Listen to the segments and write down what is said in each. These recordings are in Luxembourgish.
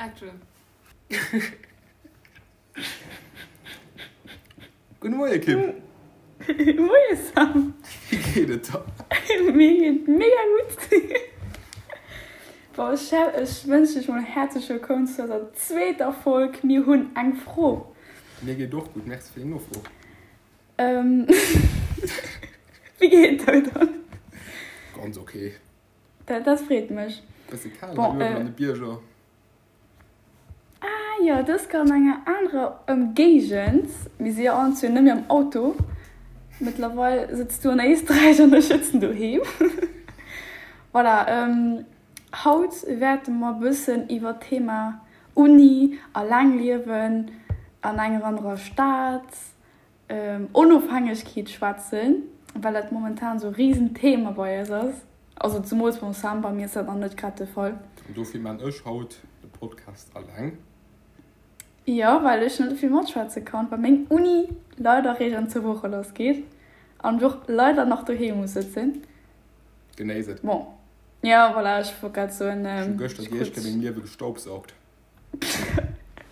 Action. Gudde Moie Kim. Moie Sam. Wéi geet et der? Mir geet mega gutt. Bon, ech ech wënschen dech mol häerzlech wëllkomm zu eiser zweeter Folg Mir hunn eng Fro. Mir geet och gutt, merci fir deng Nofro. Wéi geet et der dann? Ganz ok. Dat, dat freet mech. Bësse kal hei uewen an de Bierger. Ah jo, dës Kéier an enger anerer Ëmgéigend. Mir si jo allen zwee net méi am Auto. Mëttlerweil sëtz du an Éisträich an ech sëtzen doheem. Voilà, haut wäerte mer e bëssen iwwer d'Thema Uni, alleng liewen an enger anerer Stad, Onofhängegkeet schwätzen, well dat momentan esou e Riesenthema bei eis ass. Also zemools beim Sam, bei mir ass dat nach net grad de Fall. An dofir maan ech haut de Podcast alleng. Jo, well ech net vill matschwätze kann, well meng Uni leider réischt an zwou Woche lass geet an ech och leider nach doheem muss sëtzen. Genéiss et. Bon, jo, voilà, ech wollt grad soen, Ech hu gëschter déi éischt Kéier mengem Liewe gestaubsaugt.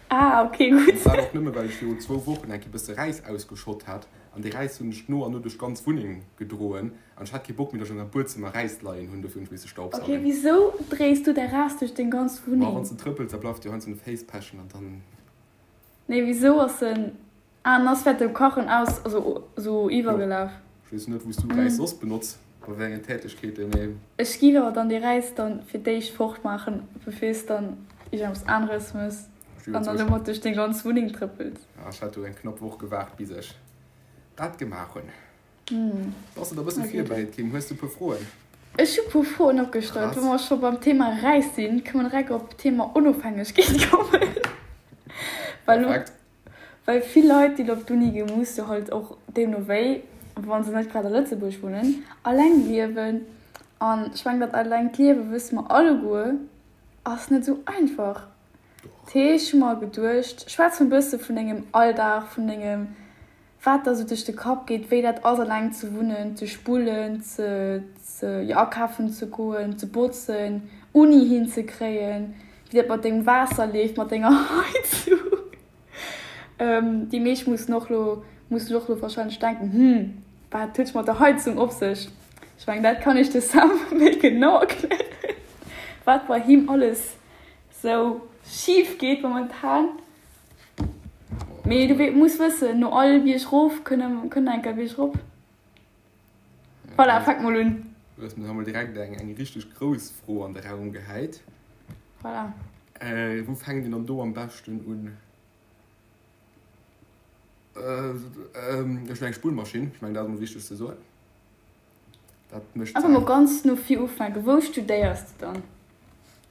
Ah, ok, gutt. An dat och nëmme well ech virun zwou Wochen eng Kéier bësse Räis ausgeschott hat. An dee Räis hunn ech no an no duerch d'ganz Wunneng gedroen. An ech hat kee Bock méi, datt ech an der Buedzëmmer Räis leien hunn. Dofir hunn ech misse Ok, staubsaugen. wisou dréis du däi Räis duerch deng ganz Ma Wunneng? wann s de trëppels, da bleift jo heiansdo an de Féiss pechen an dann. Nee, wisou ass en. Ah, en ass während dem Kachen aus, also sou Jo, iwwergelaf. ech weess net, wou s du Räis soss benotz, bei wéi engen Tätegkeeten, mee. Ech giff awer dann dee Räis dann fir d'éischt fort maachen, bevir s dann iergendeppes aneres mëss Ech an dann domat duerch deng ganz Wunneng trëppels. Ja, ech hat do eng knapp Woch gewaart, bis ech dat gemaach hunn. Bass de da bësse virbereet, Kim? Hues du e puer Froen? Ech hu puer Froen opgestallt. Wa mer scho beim Thema Räis sinn, kënne mer direkt op d'Thema Onofhängegkeet kommen. Well Perfekt. Well vill Leit, déi op d'Uni ginn, musse halt och deemno wéi, wa se net grad a Lëtzebuerg wunnen, alleng liewen. An ech mengen, dat allengt Liewe wësse mer alleguer, ass net esou einfach. Dat heescht, ech hu mer geduecht, schwätz mol e bësse vun dengem Alldag, vun dengem, wat der esou duerch de Kapp geet, wéi dat ass, alleng ze wunnen, ze spullen, ze, ze, jo, akafen ze goen, ze botzen, Uni hinzekréien, wéi dat mat dengem Waasser leeft, mat denger Heizung. Déi meescht mussen och lo, mussen och lo wahrscheinlech denken, Hm, wat huet mat der Heizung op sech? Ech mengen, dat kann iech de Sam méi genau erklären, wat bei him alles sou schif geet momentan. Mee du muss wëssen, no all Bierg rof kënn eng Kéier Bierg rop. Voilà, fänk mol un. Du hues mir mol direkt eng eng richteg grouss Fro an de Raum gehäit. Voilà. Äh, wou fänkt een dann do am beschten un? Äh, ähm, ech hunn eng Spullmaschinn, ech mengen dat ass mol wichteg ze soen. Dat mécht Einfach mol ganz no vir ufänken. Wou studéiers de dann?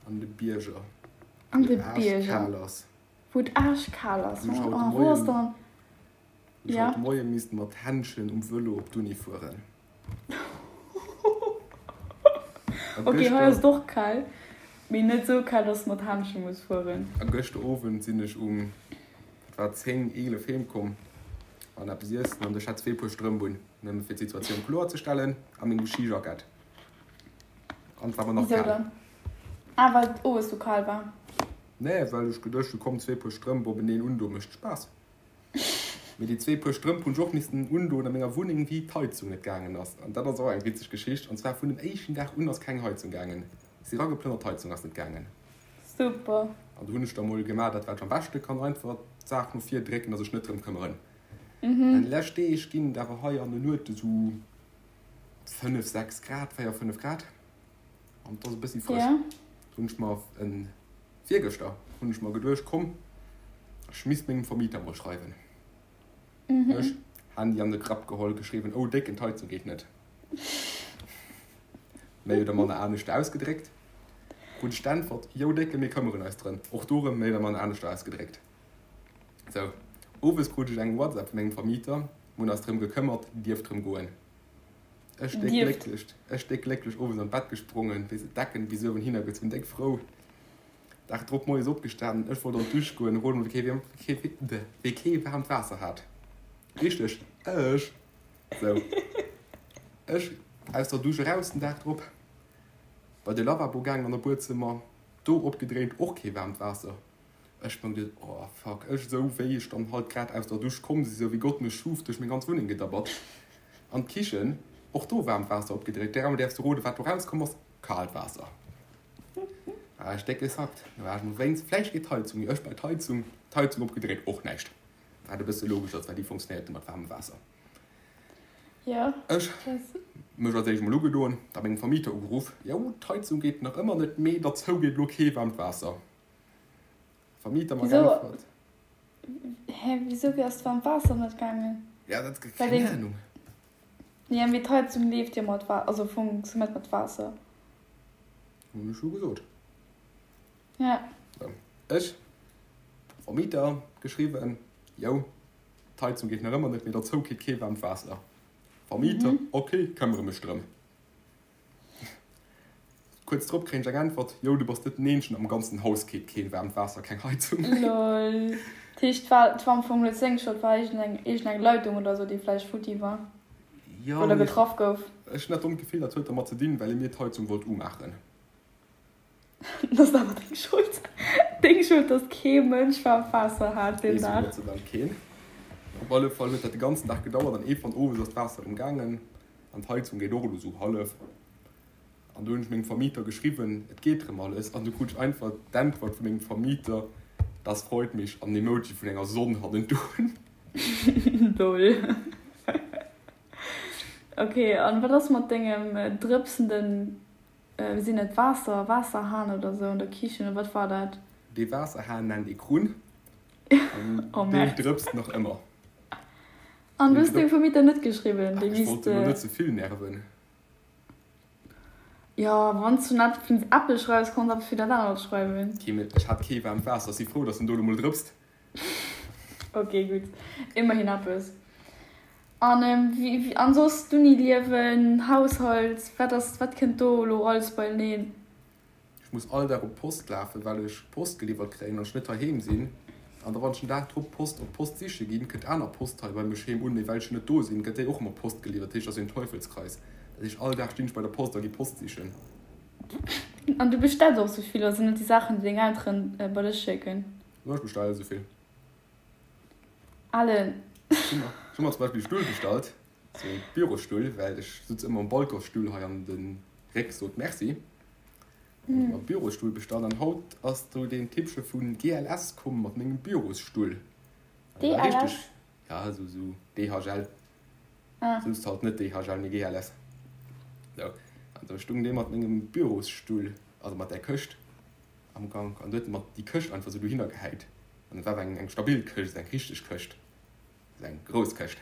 An de Bierger. An de Wou et Bierger. aarschkal ass. Wou et aarschkal ass. Wou ech haut de Oh, wou ass Moien dann? Ech Ja. haut de Moie misst mat Händschen um Vëlo op d'Uni fueren. A Ok, hei ass gëschter, et och kal, mee net esou kal, dass de mat Händschen muss fueren. a gëschter Owend sinn ech um, wat war et, 10, 11 heem komm an eppes iessen an ech hat zwee Puer Strëmp un, nëmme fir d'Situatioun kloer ze stellen, a mengem Skijackett. An et war mer nach Wisou kal. dann? Ah, well et owes sou kal war. Nee, well ech geduecht hu, komm, zwee Puer Strëmp openeen undoen, mécht Spaass. Mee déi zwee Puer Strëmp hunn ech och missten undoen a menger Wunneng, wéi d'Heizung net gaangen ass. An dat ass och eng witzeg Geschicht. An zwar vun dem éischten Dag un ass keng Heizung gaangen. Si erageplënnert, d'Heizung ass net gaangen. Super. An do hunn ech da mol gemaach dat, wat ech am beschte kann, einfach d'Saach no vir drécken a sech net drëm këmmeren. An déi lescht Deeg ginn et awer hei an den Nuete sou 5, 6 Grad, 4, 5 Grad. An et ass e bëssi frësch. Do hunn ech mer en Virgëschter hunn ech mer geduecht, komm, ech misst mengem Vermieter mol schreiwen. Ech, Handy an de Grapp geholl, geschriwwen, oh Décken, d'Heizung geet net. Méi oder manner anescht ausgedréckt. Krut ech d'Äntwert, jo Décken, mir këmmeren eis drëm. Och do erëm méi oder manner anescht ausgedréckt. Sou, owes krut ech eng WhatsApp vu mengem Vermieter, mir hunn eis drëm gekëmmert, dierft rëm goen. Ech déck glécklech, ech déck glécklech owes an d'Bett gesprongen, weess et, d'Decken bis uewen hinner gezunn, déck frou. Dag drop moies opgestanen, ech wollt an d'Dusch goen, rot mol wee kee, wee kee waarmt Waasser hat. Richteg, ech! Sou, ech aus der Dusch eraus den Dag drop, bei de Lavabo gaangen an der Buedzëmmer, do opgedréint, och kee waarmt Waasser. Ech meng geduet, oh fuck, ech esou wéi ech dann halt grad aus der Dusch komm si, esou wéi Gott mech schuf, duerch meng ganz Wunneng gedabbert. An d'Kichen, och do waarmt Waasser opgedréit. Dräimol däerfs du roden, wat do rauskomm ass, kaalt Waasser. War ech déck gesackt. Da war ech mol wéinst, vläicht geet d'Heizung, jo ech bei d'Heizung, d'Heizung opgedréit, och näischt. Wat e bësse logesch ass, well déi funktionéiert net mat waarmem Waasser. Jo. Ech mech als éischt mol ugedoen, da mengem Vermieter ugeruff, jo d'Heizung geet nach ëmmer net, mee derzou geet elo kee waarmt Waasser. Vermieter mer Wisou? geäntwert. Hä, wisou ass d'waarmt Waasser net gaangen? Ja, dat, Well keng deng. Ahnung. Ja, mee d'Heizung leeft jo mat Wa-, also funktionéiert mat Waasser. Hunn ech jo gesot. Ja. Sou, ech, Vermieter geschriwwen, jo, d'Heizung geet nach ëmmer net, mee derzou kritt kee waarmt Waasser. Vermieter, ok, këmmere mech drëm. Kuerz drop kréien ech eng Äntwert, Jo, du bass net den Eenzegen, am ganzen Haus geet keen waarmt Waasser, keng Heizung méi. Lol. Dat heescht, war et war am Fong net seng Schold, war iergendeng iergendeng Leitung oder sou, déi vläicht futti war Jo, oder mee getraff gouf. ech hunn dat dommt Gefill, dat huet dermat ze dinn, well e mir d'Heizung wollt umaachen. Dat ass awer deng Schold. Deng Schold, dass kee Mënsch waarmt Waasser hat deen Weess ech Dag. Gott sei Dank keen. Op alle Fall huet dat de ganzen Dag gedauert an iergendwann owes ass d'Waasser erëm gaangen an d'Heizung geet och elo sou hallef. An du hunn ech mengem Vermieter geschriwwen, et geet rëm alles. An du krut ech einfach d'Äntwert vu mengem Vermieter, Das freut mich an en Emoji vun enger Sonn hannendrun. Lol. Ok, an wat ass mat dengem drëpsenden, wéi sinn et, Waasser, Waasserhahn oder sou an der Kichen, oder wat war dat? Dee Waasserhahn nennt ee Krunn an Oh deen Merde. drëpst nach ëmmer. An du hues dengem Vermieter net geschriwwen, Ach, dee ech misst. wollt en elo net ze vill nerven. Jo, wann s du net vun Apple schreifs, kanns eppes fir dat anert schreiwen. Kee méi, ech hat kee waarmt Waasser, si frou, dass en do elo mol drëpst. Ok, gutt, ëmmerhin eppes. An wéi, an soss d'Uni-Liewen, Haushalt, wat ass, wat kënnt do elo alles beieneen? Ech muss all Dag op d'Post lafen, well ech Post geliwwert kréien an ech net heiheem sinn. An da wann ech den Dag drop d'Post op d'Post siche ginn, kënnt aner Post hei bei mech heem un, mee well ech jo net do sinn, gëtt déi och ëmmer Post geliwwert. Dat heescht, dat ass een Teufelskreis. Dat heescht, all Dag stinn ech bei der Post a gi Post sichen. An du bestells och sou vill, oder sinn dat déi Saachen, déi deng Elteren bei dech schécken? Jo, ech bestelle sou vill. Allen. Ech hu mer zum Beispill e Stull bestallt, sou e Bürosstull, well ech sutz ëmmer um Balconsstull hei an de Réck sot Merci. Hunn ech mer e Bürosstull bestallt an haut ass do deen Typche vu GLS komm mat mengem Bürosstull. DLS? Ja, sou sou DHL. Souz halt net DHL, mee GLS. Sou, an do stung dee mat mengem Bürosstull, also mat där Këscht. Am Gank an du huet mat déi Këscht einfach sou dohinner gehäit an et war awer eng eng stabil Këscht, eng richteg Këscht, also eng grouss Këscht.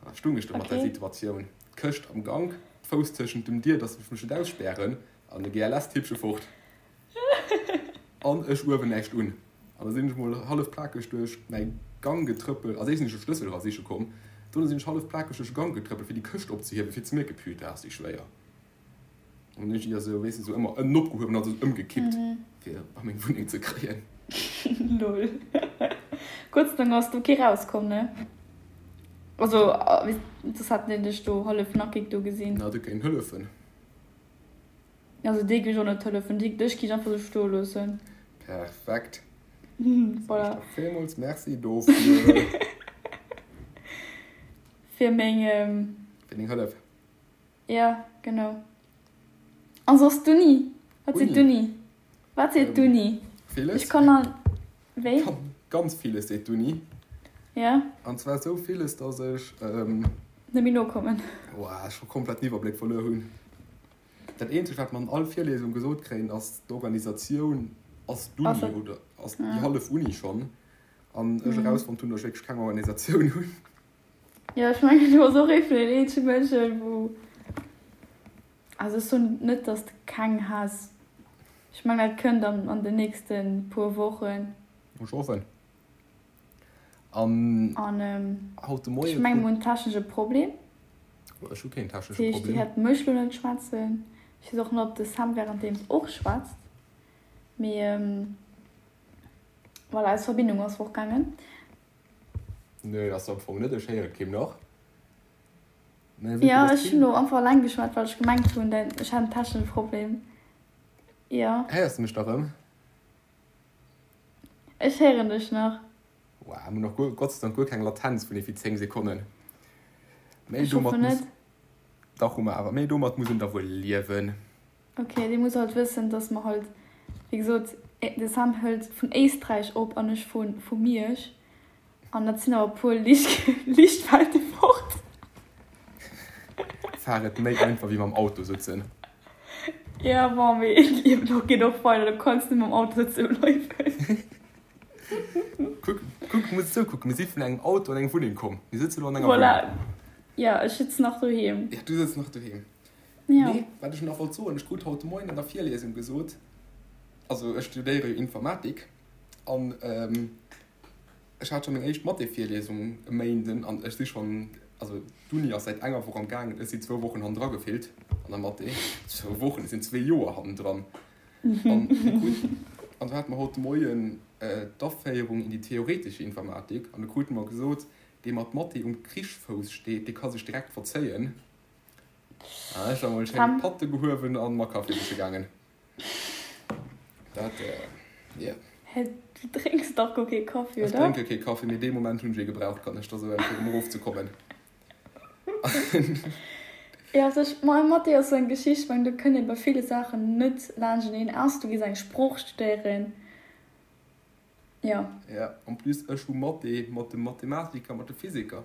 An da stung ech do mat der Okay. Situatioun, d'Këscht am Gank, d'Fouss tëschent dem Dier, dass ech mech net ausspären an de GLS-Tippche fort an ech uewen näischt un. An da sinn ech mol hallef plakeg duerch mäi Gang getrëppelt, als éischt sinn ech de Schlëssel era siche komm, dono sinn ech hallef plakeg duerch de Gank getrëppelt fir déi Këscht opzehiewen, fir ze mierken, Putain, ass déi schwéier. An hunn ech déi esou, weess de, esou ëmmer ënnen opgehuewen an esou ëmgekippt, fir a meng Wunneng ze kréien. Lol. Gott sei Dank ass do kee rauskomm, ne? Also, soss hätten déi dech do hallef nackig do gesinn. Na, du kéint hëllefen. Also déi géif ech och net hëllefen, déi, dech géif ech einfach esou stoe loossen. Perfekt. Voilà. Villmools Merci dofir. Fir meng. Fir deng Hëllef. Jo, genau. An soss d'Uni? Wat seet d'Uni? Wat seet d'Uni? Villes. Ech kann an. Wéi? Ganz villes seet d'Uni. Ja. An zwar esou villes, dass ech. Net méi nokommen. Woah, scho komplett den Iwwerbléck verluer hunn. Dat eenzegt, wat mer an all Virliesung gesot kréien, ass, d'Organisatioun ass d'Uni oder ass déi hallef Uni schonn. An ech erausfonnt hunn, dass ech wierklech keng Organisatioun hunn. Jo, ech mengen du bass och ee vun den eenzege Mënschen, wou, also ech soen net, dass de keng has, ech mengen dat kënnt an an den nächste puer Wochen. Ech hoffen. An An haut de ech Moie mengen krut. mir hunn technesche Problem. Ech hu keen Dat technesche heescht, Dir Problem. hätt mech lo net schwätzen. Ech weess och net, ob de Sam währenddeems och schwätzt, mee voilà, eis Verbindung ass fortgaangen. Nee, ass se am Fong net, ech héieren d'Kim nach. Mä wéi Jo, dass ech hunn d'Kim. lo einfach eleng geschwat, well ech gemengt hunn, ech hätt en technesche Problem. Jo. Héiers de mech da rëm? Ech héieren dech nach. Wow, mir hunn och guer, Gott sei Dank guer keng Latenz vun ewéi 10 Sekonnen. Mee Ech domat hoffen muss, net. dach hu mer awer, mee domat muss een da wuel liewen. Ok, dir musst halt wëssen, dass mer halt, wéi gesot, de Sam hëlt vun Éisträich op an ech vu vu Miersch. An dat sinn awer e puer Liichtwelten fort. Fahr et méi einfach wéi mam Auto sëtzen. Ja, bon, mee d'Liewen och geet och weider, du kanns net mam Auto sëtze bleiwen. Kuck, kuck, du muss esou kucken, mir si vun engem Auto an eng Wunneng komm, mir sëtzen elo an enger Voilà. Wunneng. Ja, ech sëtzen nach doheem. Ja, du sëtz nach doheem. Ja. Nee, wat ech nach wollt soen, ech krut haut de Moien an der Virliesung gesot, also ech studéiere jo Informatik an ech hat scho meng éischt Mathé-Virliesung e Méinden an ech si schonn, also d'Uni ass säit enger Woch am gaangen, ech sinn zwou Wochen hannendra gefillt an der Mathé. Zwou Wochen, ech sinn zwee Joer hannendran. An mir kruten, an do hate mer haut de Moien d'Aféierung in die theoretische Informatik an do krute mer gesot, dee mat Mathé um Krichsfouss steet, dee ka sech direkt verzéien. An ech hu mol schéin d'Patte gehuewen an mer Kaffi siche gaangen. Dat, yeah. Hä, du drénks dach guer kee Kaffi, Ech oder? drénke kee Kaffi, mee dee Moment hunn ech ee gebraucht, kann ech der soen, fir erëm erofzekommen. Jo, also ech, ma Mathé ass sou eng Geschicht, ech mengen, do kënnt ee bei ville Saachen net laanschteneen, ausser du gees eng Sprooch studéieren. Jo. Ja, en plus ech hu Mathé mat dem Mathematiker, mat de Physiker.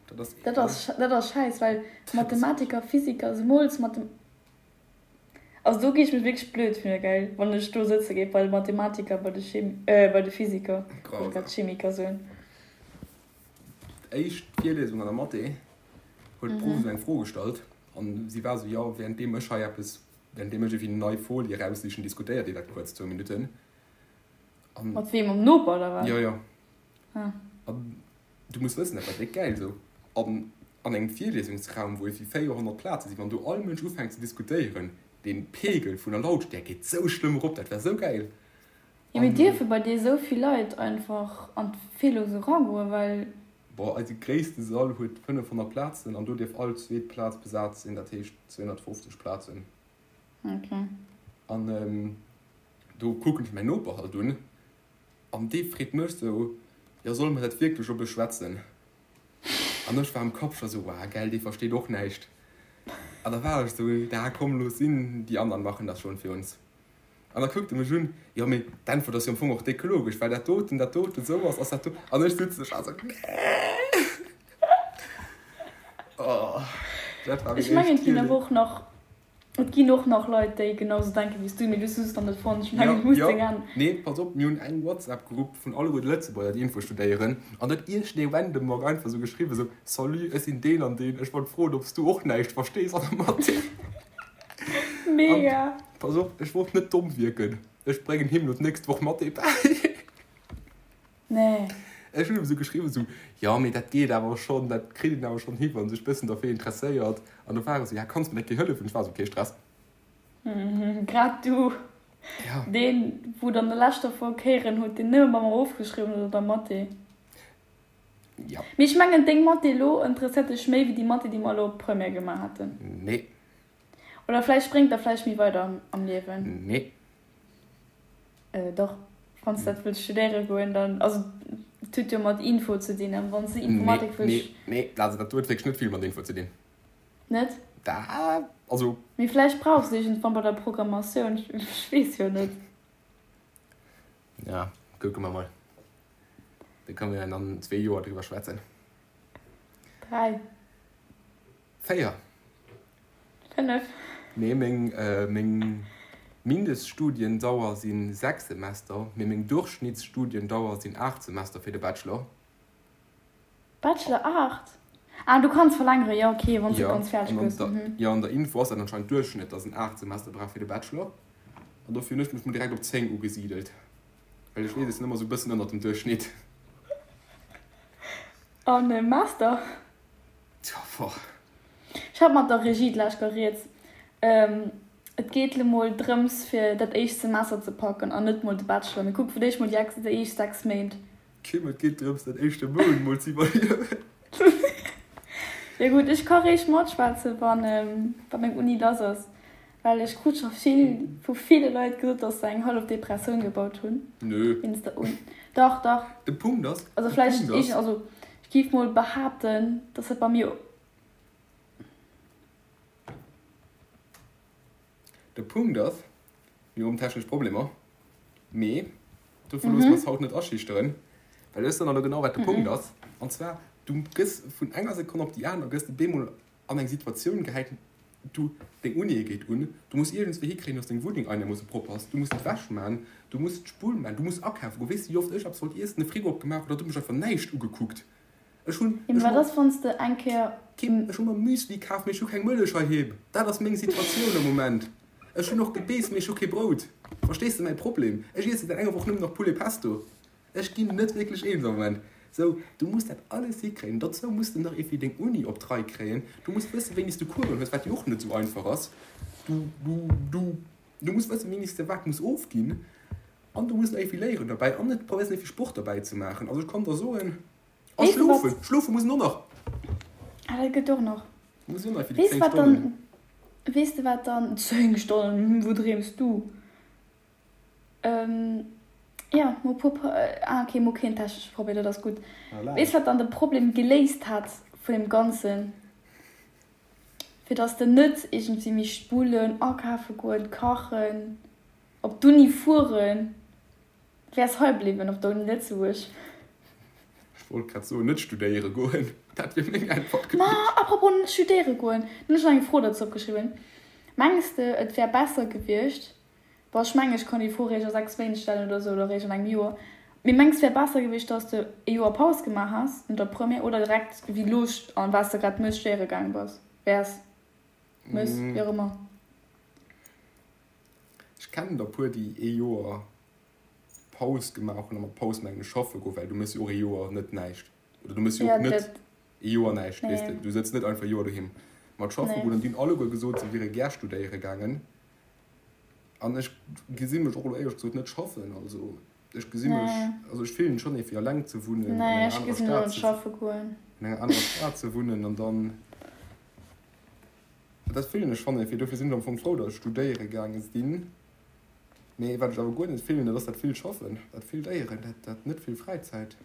Dat ass. Dat ass, dat ass schäiss, well Mathematiker, Physiker, zemools Mathe. Also do gi ech mech wierklech blöd fillen, gell, wann ech do sëtze géif bei de Mathematiker, bei de Chim, bei de Physiker, wollt grad Chemiker soen. D'éischt Virliesung an der Mathé huet d'Prof esou eng Fro gestallt an si war esou, jo, währenddeem ech hei eppes, währenddeem ech ewéi nei Folie eraussichen, diskutéiert dir dat kuerz zwou Minutten. An. Mat weem, mam Noper oder wat? Jo, jo. Ah. An du muss wëssen, dat war déck gäil esou an an engem Virliesungsraum, wou ewéi 400 Plaze sinn, wann do all Mënsch ufänkt ze diskutéieren, dee Pegel vun der Lautstäerk geet sou schlëmm erop, dat war sou gäil. Jo, mee dierfe bei dir esou vill Leit einfach an d'Virlesung eragoen, well. Boah, eise gréisste Sall huet 500 Plazen an do dierf all zweet Plaz besat sinn, dat heescht 250 Plazen. Ok. An do kucken ech mäin Noper halt un an dee freet mech sou, Jo, solle mer dat wierklech oppe schwätzen? An ech war am Kapp scho sou, Wow, gell, dee versteet och näischt. An da war ech sou, Da komm, looss sinn, die anderen machen das schon für uns. An da kuckt e mech un, Jo, mee d'Äntwert ass jo am Fong och déck logesch, well dat doten, dat doten esou ass, ass dat do. An ech sëtzen ech also, Nee! Oh, dat war meng Ech mengen, éischt et ginn awer Virlie. och nach, et ginn och nach Leit, déi genau sou denken wéi s du, mee du hues se just nach net fonnt. Ech mengen, Jo, du muss jo, deng an. nee, pass op, mir hunn eng WhatsApp-Grupp vun alleguer de Lëtzebuerger, déi Info studéieren, an do huet iergendee random mer einfach esou geschriwwen, esou, Salut, ech sinn deen an deen, ech wollt froen, ob s du och näischt verstees an der Mathé. Mega! An pass op, ech wollt net domm wierken, ech bréngen him lo d'nächst Woch Mathé bäi. Nee. Ech hunn em esou geschriwwen, esou, jo, mee dat geet awer schonn, dat kritt een awer schonn hi, wann ee sech bëssen derfir interesséiert. An du war e sou, ja, kanns mer net hëllefen? Ech war esou, kee Stress. Grad du, Ja. deen, wou et an der leschter Folg héieren hutt, deen nëmme bei mer ofgeschriwwen huet an der Mathé. Ja. Mee ech mengen, deng Mathé elo interesséiert dech méi wéi déi Mathé, déi mer elo op Première gemaach haten. Nee. Oder vläicht bréngt der vläicht méi weider am Liewen. Nee. Dach, wann s dat wëlls studéiere goen, dann, also et huet jo mat Info ze dinn, an wann s de Nee, Informatik wëlls. nee, nee, also dat huet wierklech net vill mat Info ze dinn. Net? Da, also. Mee vläicht brauchs de iergendwann bei der Programmatioun, ech weess jo net. Ja, kucke mer mol. Da kënne mer an zwee Joer driwwer schwätzen. Dräi. Véier. Fënnef. Nee, meng, meng Mindeststudiendauer si 6 Semester, mee meng Durchschnittsstudiendauer sinn 8 Semester fir de Bachelor. Bachelor 8? Ah, du kanns verlängeren, jo, ok, wann s de Jo, ganz fäerdeg an an gëss. der, Mhm. jo, an der Info ass dat anscheinend Duerchschnëtt, dass een 8 Semester brauch fir de Bachelor. An dofir hunn ech mech mol direkt op 10 ugesidelt, well ech weess, ech sinn ëmmer esou e bëssen ënnert dem Duerchschnitt. An Master? Tja, boah. Ech hat mat der Regie d'lescht Kéier rieds. Et geet lo mol drëms fir dat éischt Semester ze packen an net mol de Bachelor. Mir kucke fir d'éischt mol déi déi éischt 6 Méint. Kim, et geet drëms dat éischte Mount mol ze iwwerliewen. Jo gutt, ech ka réischt matschwätzen, wann wa meng Uni lass ass. Well ech krut scho vill vu ville Leit gesot, dass se eng hallef Depressioun gebaut hunn. Nö. Wéinst der Uni. Dach, dach. De Punkt ass, Also de vläicht Punkt ass. iergend, also ech géif mol behaapten, dass dat bei mir. De Punkt ass, mir hunn technesch Problemer, mee dofir loosse mer eis haut net aschüchteren, well ech soen der elo genau, wat de Punkt ass. An zwar, du gëss vun enger Sekonn op déi aner gëss de bemol an eng Situatioun gehäit, du, deng Uni geet un, du muss iergendswéi hikréien, dass deng Wunneng einermoosse propper ass, du muss d'Wäsch man, du muss d'Spull man, du muss akafe goen. Weess de, wéi oft ech eppes wollt iessen, de Frigo opgemaach hunn, da huet mech einfach näischt ugekuckt. Ech hunn, Jo, ech mee hu wat ass, wann s de eng Kéier. Kim, ech hu mer Müsli kaf, mee ech hu keng Mëllech heiheem. Dat ass meng Situatioun am Moment. Ech hunn och Gebeess, mee ech hu kee Brout. Verstees de mäi Problem? Ech iesse säit enger Woch nëmmen nach Poulet Pesto. Ech ginn net wierklech eens am Moment. Sou, du muss dat alles hikréien. Dozou muss de nach iergendwéi deng Uni op d'Rei kréien. Du muss wëssen, wéini s du Coursen hues, wat jo och net esou einfach ass. Du, du, du, du muss wëssen, wéini s de wat muss ofginn. An du muss nach iergendwéi léieren derbäi an et probéiers iergendwéi Sport derbäi ze maachen. Also ech kann der soen, a Weess de wat? schlofen, schlofe muss en och nach. Ah, dat gëtt och nach. Muss och nach fir déi Weess de 10 wat Stonnen. dann, weess de wat dann, 10 Stonnen, wou dreems du? Ähm, jo, mo puer, ah ok, mo keen technesche Problem, dat ass gutt. Voilà. Weess wat dann de Problem geléist hat vun deem Ganzen? Fir dass de net iergendwéi misst spullen, akafe goen, kachen. Op d'Uni fueren, wäers hei bliwwen op der Uni Lëtzebuerg. Ech wollt grad soen, net studéiere goen, dat wier meng Äntwert Ma gewiescht. apropos net studéiere goen, do hunn ech nach eng Fro dozou opgeschriwwen. Mengs de et wär besser gewiescht, bon ech mengen ech kann déi Fro réischt a 6 Méint stellen oder sou oder réischt an engem Joer, mee mengs wär besser gewiescht dass de e Joer Paus gemaach häss no der Première oder direkt wéi lo an wat s de grad méchs studéiere gaang bass, wäers, méchs, wéi och ëmmer? Ech kennen der puer déi ee Joer Paus gemaach hunn, a mat Paus mengen ech schaffe goen, well du méchs jo och ee Joer net näischt, oder du méchs jo Ja, och net dat, ee Joer näischt, weess de, nee, du sëtz net einfach e Joer doheem. Mat schaffe nee. goen, an déi hunn alleguer gesot, se wiere gär studéiere gaangen, an ech gesi mech och elo éierlech gesot net schaffen, also ech gesi mech, Nee, also ech fillen schonn ee fir eleng ze wunnen, an nee, enger ech anerer gesinn elo Stad net ze, schaffe goen. an enger anerer Stad ze wunnen an dann. Dat fillen ech schonn ierfir. Dofir sinn ech am Fong frou, datt ech studéiere gaange sinn. Mee wat ech awer guer net fillen, dat ass dat vill Schaffen, dat vill Léieren, dat, dat net vill Fräizäit.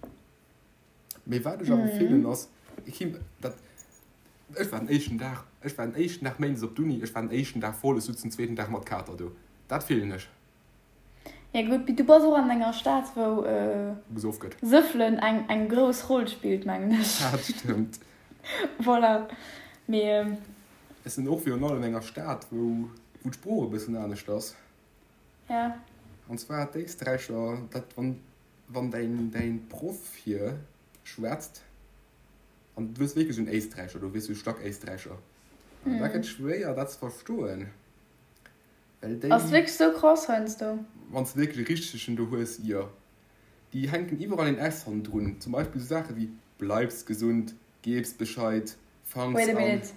Mee wat ech awer fillen ass, Kim, dat, ech war den éischten Dag, ech war den éischten Dag méindes op d'Uni, ech war den éischten Dag voll, ech sutz den zweeten Dag mat Kater do. Dat fillen ech. Ja gutt, mee du bass och an enger Stad, wou Gesoff gëtt. Sëffelen eng, eng grouss Roll spillt, mengen ech. Dat stëmmt. Voilà, mee. Ech sinn och virun allem an enger Stad, wou, wou d'Sprooch e bëssen anescht ass. Ja. An zwar d'Éisträicher, dat wann, wann däin, däin Proff hier schwätzt, an du hues wierklech en Éisträicher do, weess du, Stack-Éisträicher, an da gëtt schwéier dat ze verstoen. Well déi. Ass wierklech sou krass heiansdo. Wann s de wierklech e richtegen do hues, jo. Déi hänken iwwerall een S hannendrun. Zum Beispill sou Saache wéi bleibs gesund, gebs Bescheid, fangs Wait a an. minute,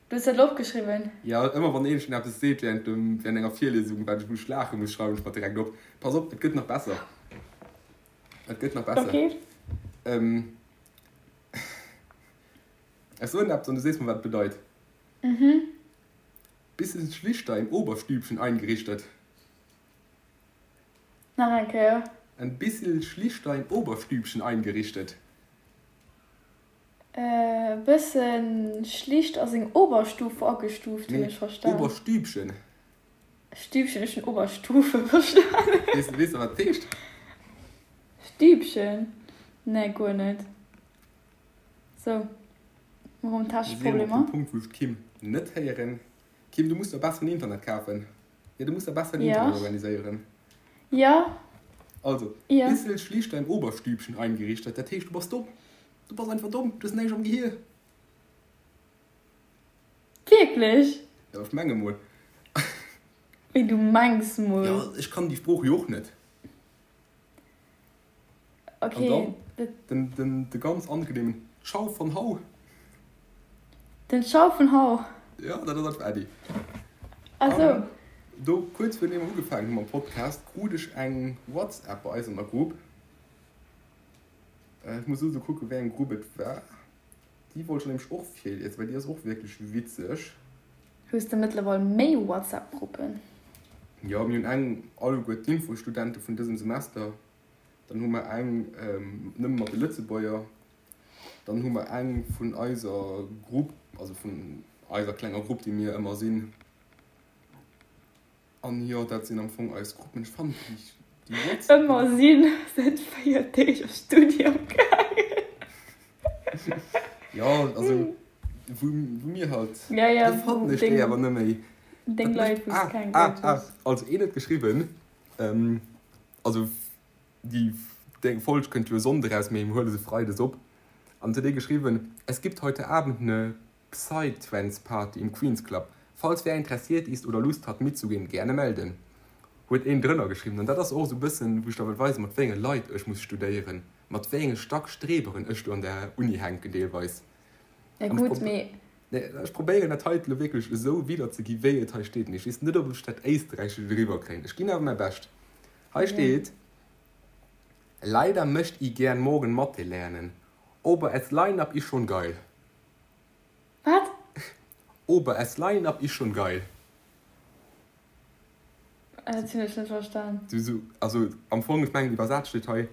du hues dat elo opgeschriwwen? Jo, ëmmer wann een schon eppes seet während dem, während enger Virliesung, wat ech muss laache muss, schreiwen ech mer direkt op. Pass op, et gëtt nach besser. Et gëtt nach besser. Okay. Ähm, ech soen eppes an du sees mer, wat et bedeit. Mhm. Bisschen schlichter im Oberstübchen eingerichtet. Nach eng Kéier. Ein bissel schlichter im Oberstübchen eingerichtet. E bësse schlicht a seng Oberstufe agestuuft, hunn Nee, ech verstan. Oberstübchen. Stübchen, ech hunn Oberstufe verstanen. Weess weess de, wat dat heescht? Stübchen? Nee, guer net. Sou, mer hunn Mir sinn erëm op technesch dem Problemer. Punkt, wou ech d'Kim net héieren. Kim, du muss der besseren Internet kafen. Jo, du muss der besseren Ja. Internet organiséieren. Ja. Also, Ja. Bissel schlicht dein Oberstübchen eingerichtet, dat heescht, du bass domm. Du bass einfach domm, du hues näischt am Gehier. Wierklech? Jo, ech menge mol. Wéi, du mengs mol? Jo, ech kann déi Sprooch jo och net. Okay, An dann dat. den, den, de ganz angenehmen Ciao von Hau. Den Ciao von Hau. Ja, dat ass einfach Äddi. Ah sou. An do, kuerz virun deem mer ugefaangen hu mam Podcast, krut ech eng WhatsApp bei eis an der Grupp. Ech muss elo kucken, wéi eng Grupp et war. Déi wollt ech nämlech och virliesen, well déi ass och wierklech witzeg. Hues de mëttlerweil méi WhatsApp-Gruppen? Jo, mir hunn eng alleguer d'Infostudente vun dësem Semester. Dann hu mer eng nëmme mat de Lëtzebuerger. Dann hu mer eng vun eiser Grupp, also vun eiser klenger Grupp, déi mir ëmmer sinn. An jo, dat sinn am Fong eis Gruppen. Ech fannen déi, déi WhatsApp. Ëmmer sinn säit 4 Deeg op Studium gaangen. Jo, also wou, wou mir halt. Ja, ja, Déi fannen ech déi awer net méi. Deng Leit, wou s keng Ah, ah, ah, also een huet geschriwwen, also déi deng Folg kënnt jo e Sonnde raus, mee mir huele se Freides op. An et huet ee geschriwwen, Es gibt heute Abend ne Psytrance-Party im Queen's Club. Falls wer interessiert ist oder Lust hat mitzugehen, gerne melden. Huet een drënner geschriwwen. An dat ass och esou e bëssen, wou ech der wëll weisen, mat wéi enge Leit ech muss studéieren, mat wéi enge Stackstreberen ech do an der Uni hänken deelweis. Ja gutt, mee. Ech probéieren dat heite lo wierklech esou widderzegi wéi et hei steet, mee ech weess net, ob ech dat Éisträichescht eriwwer kréien. Ech ginn awer mäi Bescht. Hei steet, Leider möcht i gern morgen Mathe lernen, ober es Line-up is schon geil. Wat? Ober es Line-up is schon geil. Dat hunn ech net verstan. Du so, also am Fong, ech mengen iwwersat steet hei,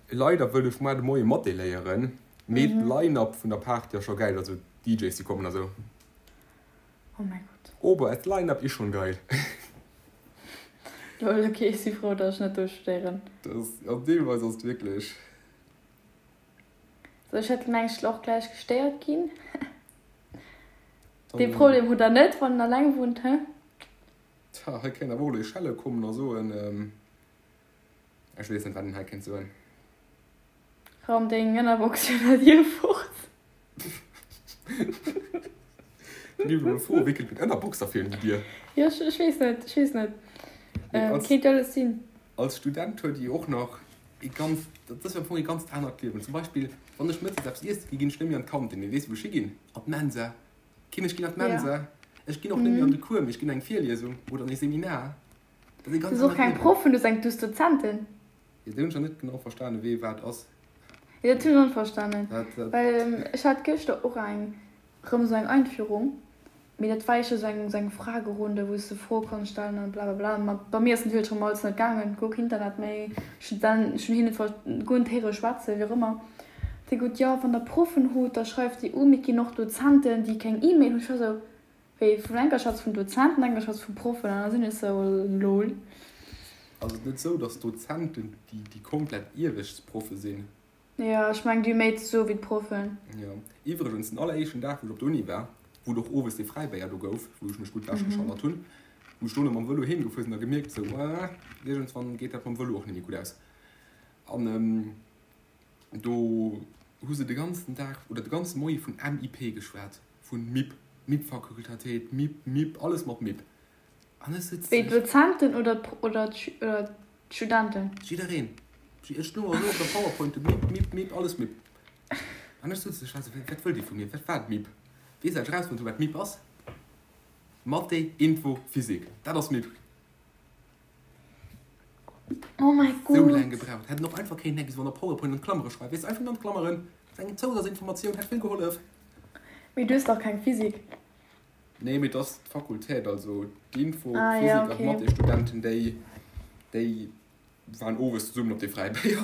Leider wëll ech muar de Moie Mathé léieren, mee d'Line-up vun der Party ass scho gäil, also d'DJs déi kommen a sou. Oh mäi Gott. Ober es Line-up is schon geil. Lol, ok, ech si frou, datt ech net do studéieren. Dat ass, jo deelweis ass et wierklech. Sou, ech hätt mengt ech och gläich gestéiert ginn. Dee Problem hutt der net, wann en alleng wunnt, he? Tja, hei kéint awer och elo ee schelle kommen a soen, ech weess net, wat een hei kéint soen. Raum deng Ënnerbox virun der Dier fort. Mir elo froen, wéi kënnt meng Ënnerbox da virun déi Dier? Jo, ech weess net, ech weess net. Kéint jo alles sinn. Als Student huet ee och nach ee ganz, dat ass jo am Fong ee ganzt anert Liewen. Zum Beispill, wann ech mëttes eppes iesse gi, ginn ech net méi an d'Kantin. Mee weess de, wou ech higinn? An d'Mensa. Kim, ech ginn an d'Mensa. Ech ginn och net méi an de Cours, mee ech ginn an eng Virliesung oder an ee Seminar. Dat ass ee ganz anert Liewen. Du hues och keng Proffen, du hues eng, du hues Dozenten. Jo, do hunn ech nach net genau verstanen, wee wat ass. Jo, dat hunn ech och net verstanen. Well ech hat gëschter och eng, rëm esou eng Einführung, mee dat war éischter esou eng, esou eng Fragerunde, wou s de Froe konns stellen an blablabla. Ma bei mir ass natierlech rëm alles net gaangen, guer keen Internet méi, ech hunn dann, ech hunn hien net ver, guer net héiere schwätzen, wéi och ëmmer. Déi gutt, jo, wann der Proffen hutt, da schreift déi u, mee et ginn och Dozenten, déi keng E-Mail hunn. Ech war esou, Wéi vun enker schwätz vun Dozenten, enker schwätz vu Proffen an da sinn ech sou lol. Ass et net sou, dass d'Dozenten déi déi komplett Iewechtsproffe sinn? Jo, ech mengen déi hu méi ze soe wéi d'Proffen. Jo. Iwwregens, den alleréischten Dag wou ech op der Uni war, wou et och owes dee Fräibéier do gouf, wou ech mech gutt wech geschallert hunn, wou ech dono mam Vëlo heem gefuer sinn a gemierkt sou, ah, iergendswann geet dat mam Vëlo och net méi gutt aus. An Do hu se de ganzen Dag oder de ganze Moie vun MIP geschwat, vun MIP, MIP-Fakultatéit, MIP, MIP, alles mat MIP. An ech sëtz. Wéi d'Dozenten oder oder d'Studenten? Jiddereen. Ech stoung esou op der Powerpoint, MIP, MIP, MIP, alles MIP. An ech sëtz, ech war esou, wat wëllt Dir vu mir? Wat war d'MIP? Weess ech erausfonnt hu wat MIP ass? Mathé, Info, Physik. Dat ass MIP. Oh mäi Gott. Sou laang gebraucht. Hätt en och einfach kéinten eppes an der Powerpoint an d'Klammere schreiwen. Weess de, einfach nëmmen an d'Klammeren. Dat ass eng Zousazinformatioun, hätt vill gehollef. Mee du hues dach keng Physik. Nee, mee et ass d'Fakultät, also d'Info-, ah, Physik ja, okay. an d'Mathé-Studenten, déi, déi waren owes zesummen op de Fräibéier.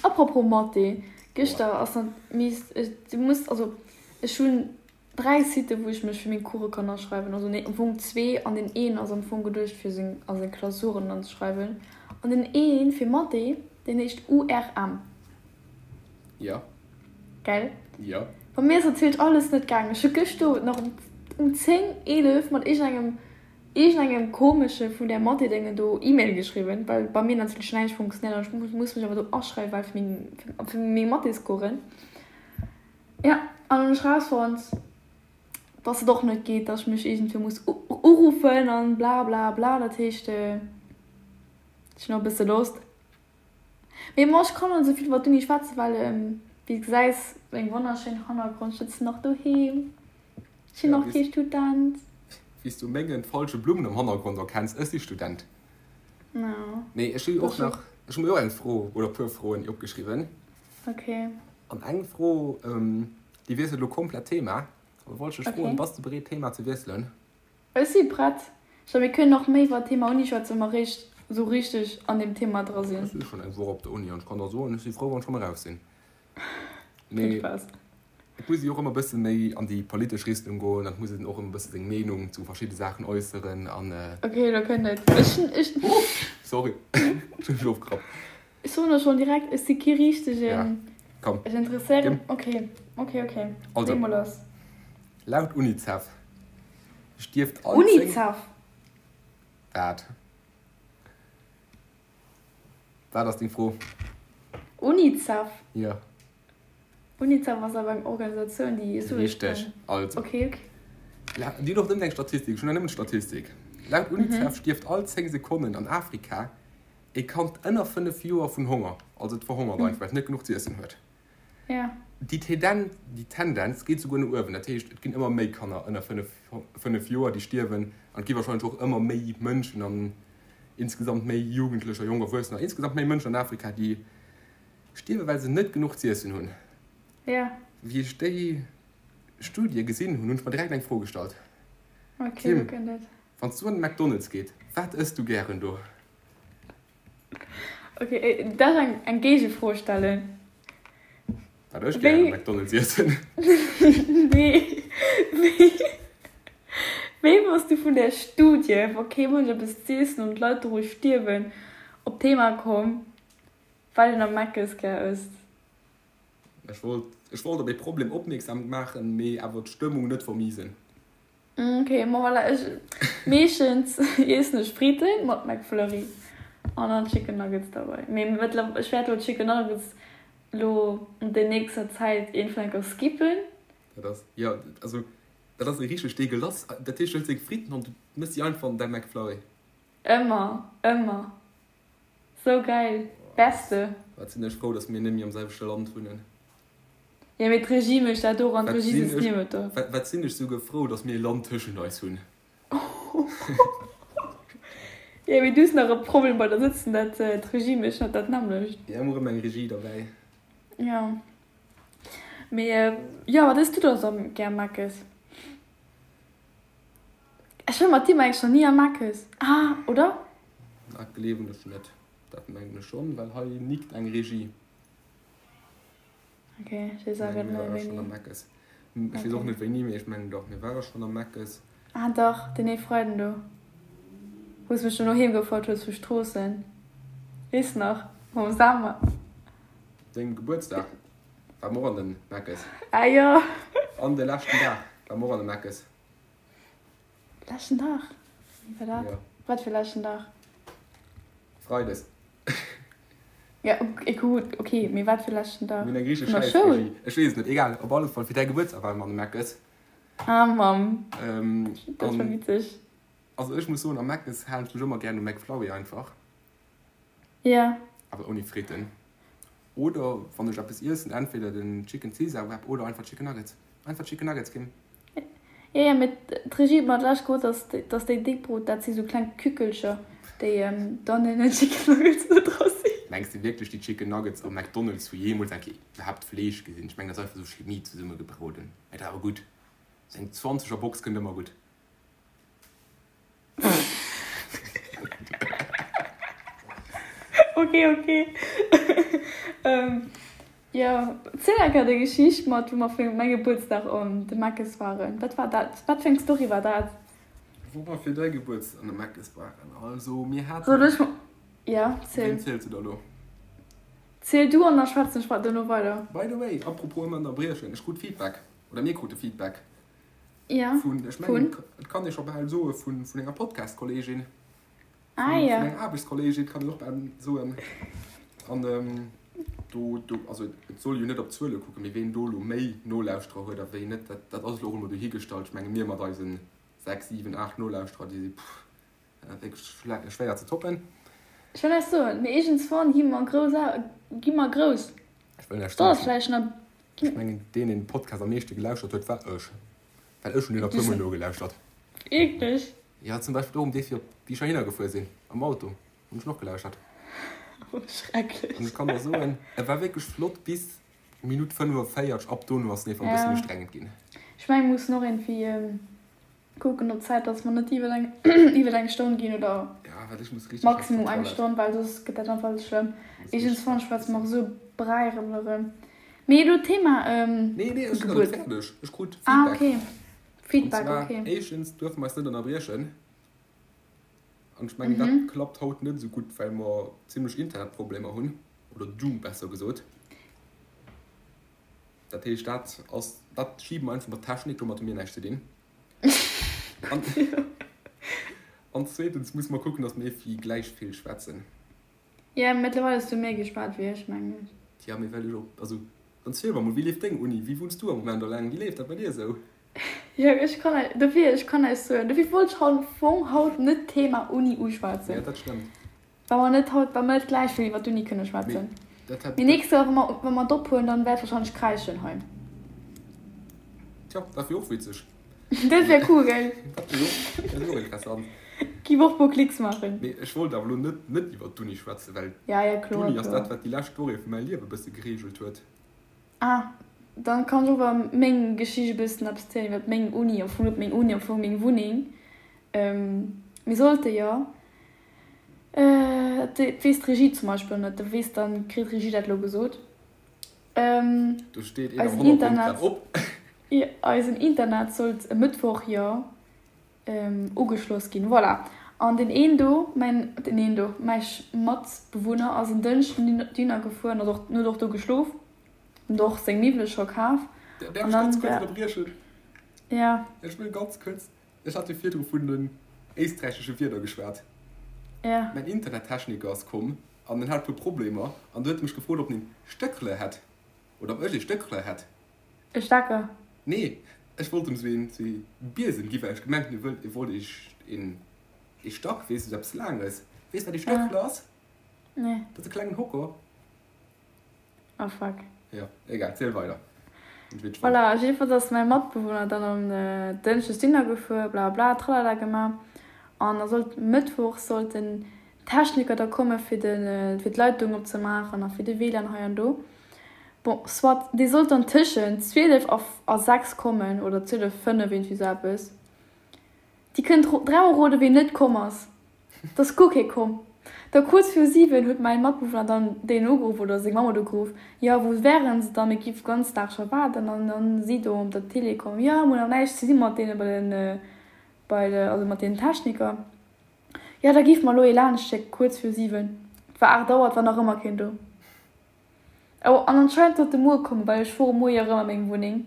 Apropos Mathé, gëschter ass dann mies, du muss, also ech hunn 3 Siten wou ech mech fir meng Course kann aschreiwen, also nee am Fong zwee an deen een ass am Fong geduecht fir seng a seng Klausuren anzeschreiwen an deen een fir Mathé deen heescht URM. Jo. Gell? Jo. Bei mir ass natierlech alles net gaangen. Ech hu gëscht Owend nach um um 10, 11 mat iergendengem iergendengem komesche vun där Mathé-Déngen do E-Mail geschriwwen, well bei mir natierlech näischt funktionéiert an ech muss mech awer do aschreiwen, well fir meng fir meng Mathéscoursen. Ja, an hunn ech rausfonnt, dass et och net geet, dass ech mech iergendwéi muss uruffen an bla bla bla. Dat heescht, ech hunn och e bësse Lost. Mee bon, ech kann net esou vill iwwer d'Uni schwätzen, well wéi s gesäis, meng wonnerschéin Hannergrond, ech sëtzen nach doheem, ech sinn nach kee Student. Wéi s du mengen falsche Blummen am Hannergrond erkenns, ech si Student. Nee, ech hu och nach, ech hu mir och eng Fro oder e puer Froen opgeschriwwen. Ok. An eng Fro, déi wiesselt elo komplett d'Thema. Da wollt ech dech froen, bass de bereet d'Thema ze wiesselen? Ech si prett. Scho mir kënnen och méi iwwer d'Thema Uni schwätzen, wa mer réischt esou richteg an deem Thema dra sinn. Ech si schonn eng Woch op der Uni an ech kann der soen, ech si frou, wann ech rëm eraus sinn. Mee et muss ee jo och ëmmer e bësse méi an déi politesch Richtung goen an et muss een och ëmmer e bësse seng Meenung zu verschidde Saachen äusseren an. Ok, elo kënnt et. Ech, ech. Sorry, ech hunn dech ofgerappt. Ech soen der schonn direkt, ech si kee richtegen. Ja, komm. Ech interesséieren. Ok, ok, ok. Also, Lee mol lass. Laut Unicef stierft all 10. Unicef? Wat? Wat ass deng Fro? Unicef? Jo. Unicef ass awer eng Organisatioun, déi esou. Richteg, also. Ok, ok. Déi hunn och nëmmen eng Statistik, ech hunn och nëmmen d'Statistik. Laut Unicef stierft all 10 Sekonnen an Afrika E Kand ënner 5 Joer vun Honger, also et verhongert einfach, well et net genuch z'iessen huet. Déi Tendenz geet souguer no uewen, dat heescht, et ginn ëmmer méi Kanner ënner 5 Joer, déi stierwen, an et gi warscheinlech och ëmmer méi Mënschen an insgesamt méi Jugendlecher, jonk Erwuessener, insgesamt méi Mënschen an Afrika, déi stierwen, well se net genuch z'iessen hunn. Wéi ech déi Studie gesinn hunn, hunn ech mer direkt eng Fro gestallt, Kim, wann s du an de McDonald's geet, wat ëss du gären do? Ok, darf ech eng Géigefro stellen? Wat ech gären am McDonald's iessen? Nee. Wéi bass du vun där Studie, wa kee Mënsch eppes z'iessen an d'Leit doru stierwen, op d'Thema komm, wat een am Meckes gär ësst? Ech wollt, ech wollt op ee Problem opmierksam maachen, mee awer d'Stëmmung net vermiesen. Ok, ma voilà, ech meeschtens iessen ech Fritten mat McFlurry an dann Chicken Nuggets derbei. Mee mëttlerweil, ech wäert lo Chicken Nuggets lo an der nächster Zäit iergendwann enker skippen. Dat ass, jo, also dat ass richteg deegelass. Dat heescht, du hëls deng Fritten an du mëss déi einfach an däi McFlurry. Ëmmer, ëmmer. Sou geil, beste. Wat sinn ech frou, dass mir net méi am selwechte Land wunnen. Jo mee d'Regie mécht dat och an d'Regie sëtzt niewent der. Wat sinn ech souguer frou, dass mir e Land tëschent eis hunn. Jo mee du hues nach e Problem bei der sëtzen, dat d'Regie mécht net dat nämmlecht. Jo, mir hu rëm eng Regie derbäi. Jo mee jo, wat ëss du da sou gär Meckes? Ech war mat dir mengen ech nach ni am Meckes, ah oder? Dat gleewen ech net. Dat mengen ech schonn, well hei nickt eng Regie. Ok, ech weess awer net méi wéini. Ech weess och net wéini, mee ech mengen dach, mir ware schonn am Meckes. Ah dach, deen ee Freiden do, wou s mech dono heem gefouert hues vu Stroossen. Weess nach, mam Sam. Dengem Gebuertsdag ware mer och an de Meckes. Ah jo. An de leschten Dag ware mer och an de Meckes. Leschten Dag? Wéi war dat? Wat fir leschten Dag? Freides. Ja, gutt, ok, mee wat fir leschten Dag? Mir hunn eng richteg Vun der Schoul? Schäissregie. Ech weess et net, egal. Op alle Fall, fir däi Gebuertsdag ware mer an de Meckes. Ah, Mamm. Dat war witzeg. Also ech muss soen, am Meckes halen ech mech ëmmer gären um McFlurry einfach. Ja. Awer ouni Fritten. Oder wann ech eppes iessen, entweder den Chicken Caesar Wrap oder einfach Chicken Nuggets. Einfach Chicken Nuggets ginn. Jo, jo, mee d'Regie huet mer d'lescht gesot, dass, dass déi déck Brot, dat si sou kleng Kückelcher, déi dann in den Chicken Nuggets net dra sinn. Mengs de wierklech, déi Chicken Nuggets am McDonald's hu jeemools eng Kéier iwwerhaapt Fleesch gesinn? Ech mengen, dat ass einfach sou Chemie zesummegebroden. Mee dat ass awer gutt. Sou eng zwanzeger Box kënnt ëmmer gutt. Ok, ok. Jo, ziel eng Kéier déi Geschicht mat, wou mer fir mäi Gebuertsdag an de Meckes waren. Wat war dat? Wat fir eng Story war dat? Wou mer fir däi Gebuertsdag an de Meckes waren? Also, mir haten. Soll ech? Ja, ziel. Ween zielst du da lo? Ziel du an da schwätzen ech duerno weider. By the way, apropos ëmmer ënnerbriechen, ech krut Feedback, oder mir krute Feedback. Ja, vun, ech mengen, et kann ee scho bal soe vun, vun enger Podcast-Kolleegin. Ah, ja. Vun enger Aarbechtskolleegin kann een och bal soen. An ähm, do, do, also et soll jo net op d'Zuele kucken, mee ween do elo méi Nolauschterer huet a wéi net, dat, dat ass elo och emol dohigestallt. Ech menge mir mat eisen 6, 7, 8 Nolauschterer, déi si, pff, wierklech schwéier ze toppen. Ech wëll näischt soen, mee iergendswann gi mer grouss, gi mer grouss. Ech wëll näischt soen. Vläicht nach. Ech mengen, deen, deen de Podcast am meeschte gelauschtert huet, war ech. Well ech hunn deen e puermol nogelauschtert. Wierklech? Jo, zum Beispill och um Dee fir op wéi ech heihinner gefuer sinn, am Auto, hunn ech en och gelauschtert. Oh, schrecklech. An ech kann der soen, e war wierklech flott bis Minutt 45, ab dono ass en einfach e bëssen ustrengend ginn. Ech mengen, mir mussen och iergendwéi kucken op d'Zäit, dass mer net iwwer eng, iwwer eng Stonn ginn oder Ja, well ech muss richteg op maximum eng d'Toilette. Stonn, well soss gëtt dat einfach alles schlëmm. Muss richteg Iergendswann op schwätze d'Toilette. mer och esou Bräi erëm erëm. Mee elo Thema Nee, nee, ech sinn nach net Gebuert. fäerdeg. Ech krut Ah, Feedback. okay. An Feedback, zwar, okay. éischtens duerfe mer eis net ënnerbriechen. An ech mengen, dat klappt haut net esou gutt, well mer zimlech Internetproblemer hunn, oder du besser gesot. Dat heescht, dat ass, dat schibe mer einfach mat Technik, domat hu mir näischt ze dinn. An, an zweetens musse mer kucken, datt mir iergendwéi gläich vill schwätzen. Ja, mëttlerweil hues du méi geschwat wéi ech, mengen ech. Tja, mee well ech och, also dann ziel mer mol, wéi leeft deng Uni? Wéi wunns du am Moment alleng? Wéi leeft dat bei dir esou? Jo, ech kann eis, dofir, ech kann eis soen, dofir wollt ech am Fong haut net d'Thema Uni Ja, uschwätzen, dat stëmmt. well mer net haut, well mer net gläich vill iwwer d'Uni kënne Mee schwätzen. dat hätt, Mee dat, nächst Joer, wa mer, wa mer et ophuelen, dann wäert wahrscheinlech kräischen hei. tja, dat wier och witzeg. Dat wär cool, gell? Dat wier och, dat wier och interessant. Giff och puer Klicks maachen. Mee ech wollt awer elo net, net iwwer d'Uni schwätzen, well Ja, ja, kloer, d'Uni ass kloer. dat, wat déi lescht Woche vu mäi Liewe bësse gereegelt huet. Ah, dann kann ech och iwwer meng Geschicht e bëssen eppes zielen, iwwer meng Uni, am Fong net meng Uni, am Fong meng Wunneng. Mir sollte jo, dat weess d'Regie zum Beispill net, da weess, dann kritt d'Regie dat elo gesot, Do steet een am eisen Hannergrond Internet, grad op. eisen Internet sollt e Mëttwoch jo ugeschloss ginn. Voilà. An deen een do, mäin, deen een do, mäi Matbewunner ass en Dënschden dohinner gefuer an ass och, huet och do geschlof, huet och seng Miwwele scho kaf. Däerf An ech dann ganz kuerz war, ënnerbriechen? ja. Ech wëll ganz kuerz, ech hat jo virdru vun den éisträichesche Wierder geschwat. Ja. Mäin Internettechniker ass komm an en hat e puer Problemer an du huet e mech gefrot, ob en een Stéckle hätt oder ob ech ee Stéckle hätt. E Stecker? Nee, ech wollt em sou een sou ee Biesem gi well ech gemengt hunn e wëllt e wollt ee een ee Stack, weess de, sou eppes laanges. Weess wat ee Ah, Stöckle ass? nee. Dat ass e klengen Hocker. Oh fuck. Jo, egal, ziel weider. Hunn ech wierklech fonnt. Voilà, jiddefalls ass mäi Matbewunner dann um Dënschdes Dinner gefuer, bla bla tralala gemaach an da sollt Mëttwoch sollt den Techniker da komme fir de fir d'Leitung opzemaachen a fir de WLAN hei an do. Bon, soit, dee sollt dann tëschent 12 a a 6 kommen oder 12, 5, iergendwéi sou eppes. Dir kënnt dräimol roden, ween net komm ass. Et ass guer kee komm. Da kuerz viru 7 huet mäin Matbewunner dann deen ugeruff oder seng Mamm huet ugeruff, jo, wou wären se dann, mir géife ganz Dag scho waarden. An dann si do op der Télé komm, jo, mir hunn nach näischt ze di mat deene bei den, bei de, also mat deenen Techniker. Jo, da géife mer elo ee laanscht schécken, kuerz viru 7. Et war 8 Auer, et war nach ëmmer keen do. Oh, an anscheinend sollt e muer kommen, well ech fuere muer jo erëm a meng Wunneng.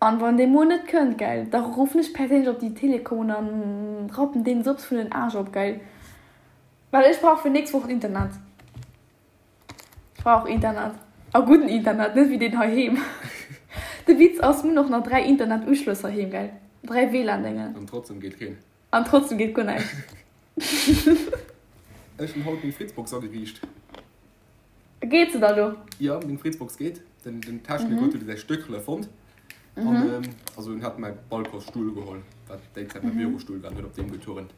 An wann dee muer net kënnt, gell, da ruffen ech perséinlech op déi Telekom un an rappen deenen sops vun den Aarsch op, gell. Well ech brauch fir nächst Woch Internet. Ech brauch Internet. A gudden Internet, net wéi deen heiheem. De Witz ass, mir hunn och nach 3 Internetuschlëss heiheem, gell. 3 WLAN-Déngen. An trotzdem geet keen. An trotzdem geet guer näischt. Ech hunn haut meng Fritzbox ageriicht. Geet se da lo? Jo, meng Fritzbox geet. Den, den Techniker huet säi Stéckele fonnt. An, ähm, also en hat mäi Balconsstull geholl, wat déi Zäit mäi Bürostull war, an huet op deem geturnt.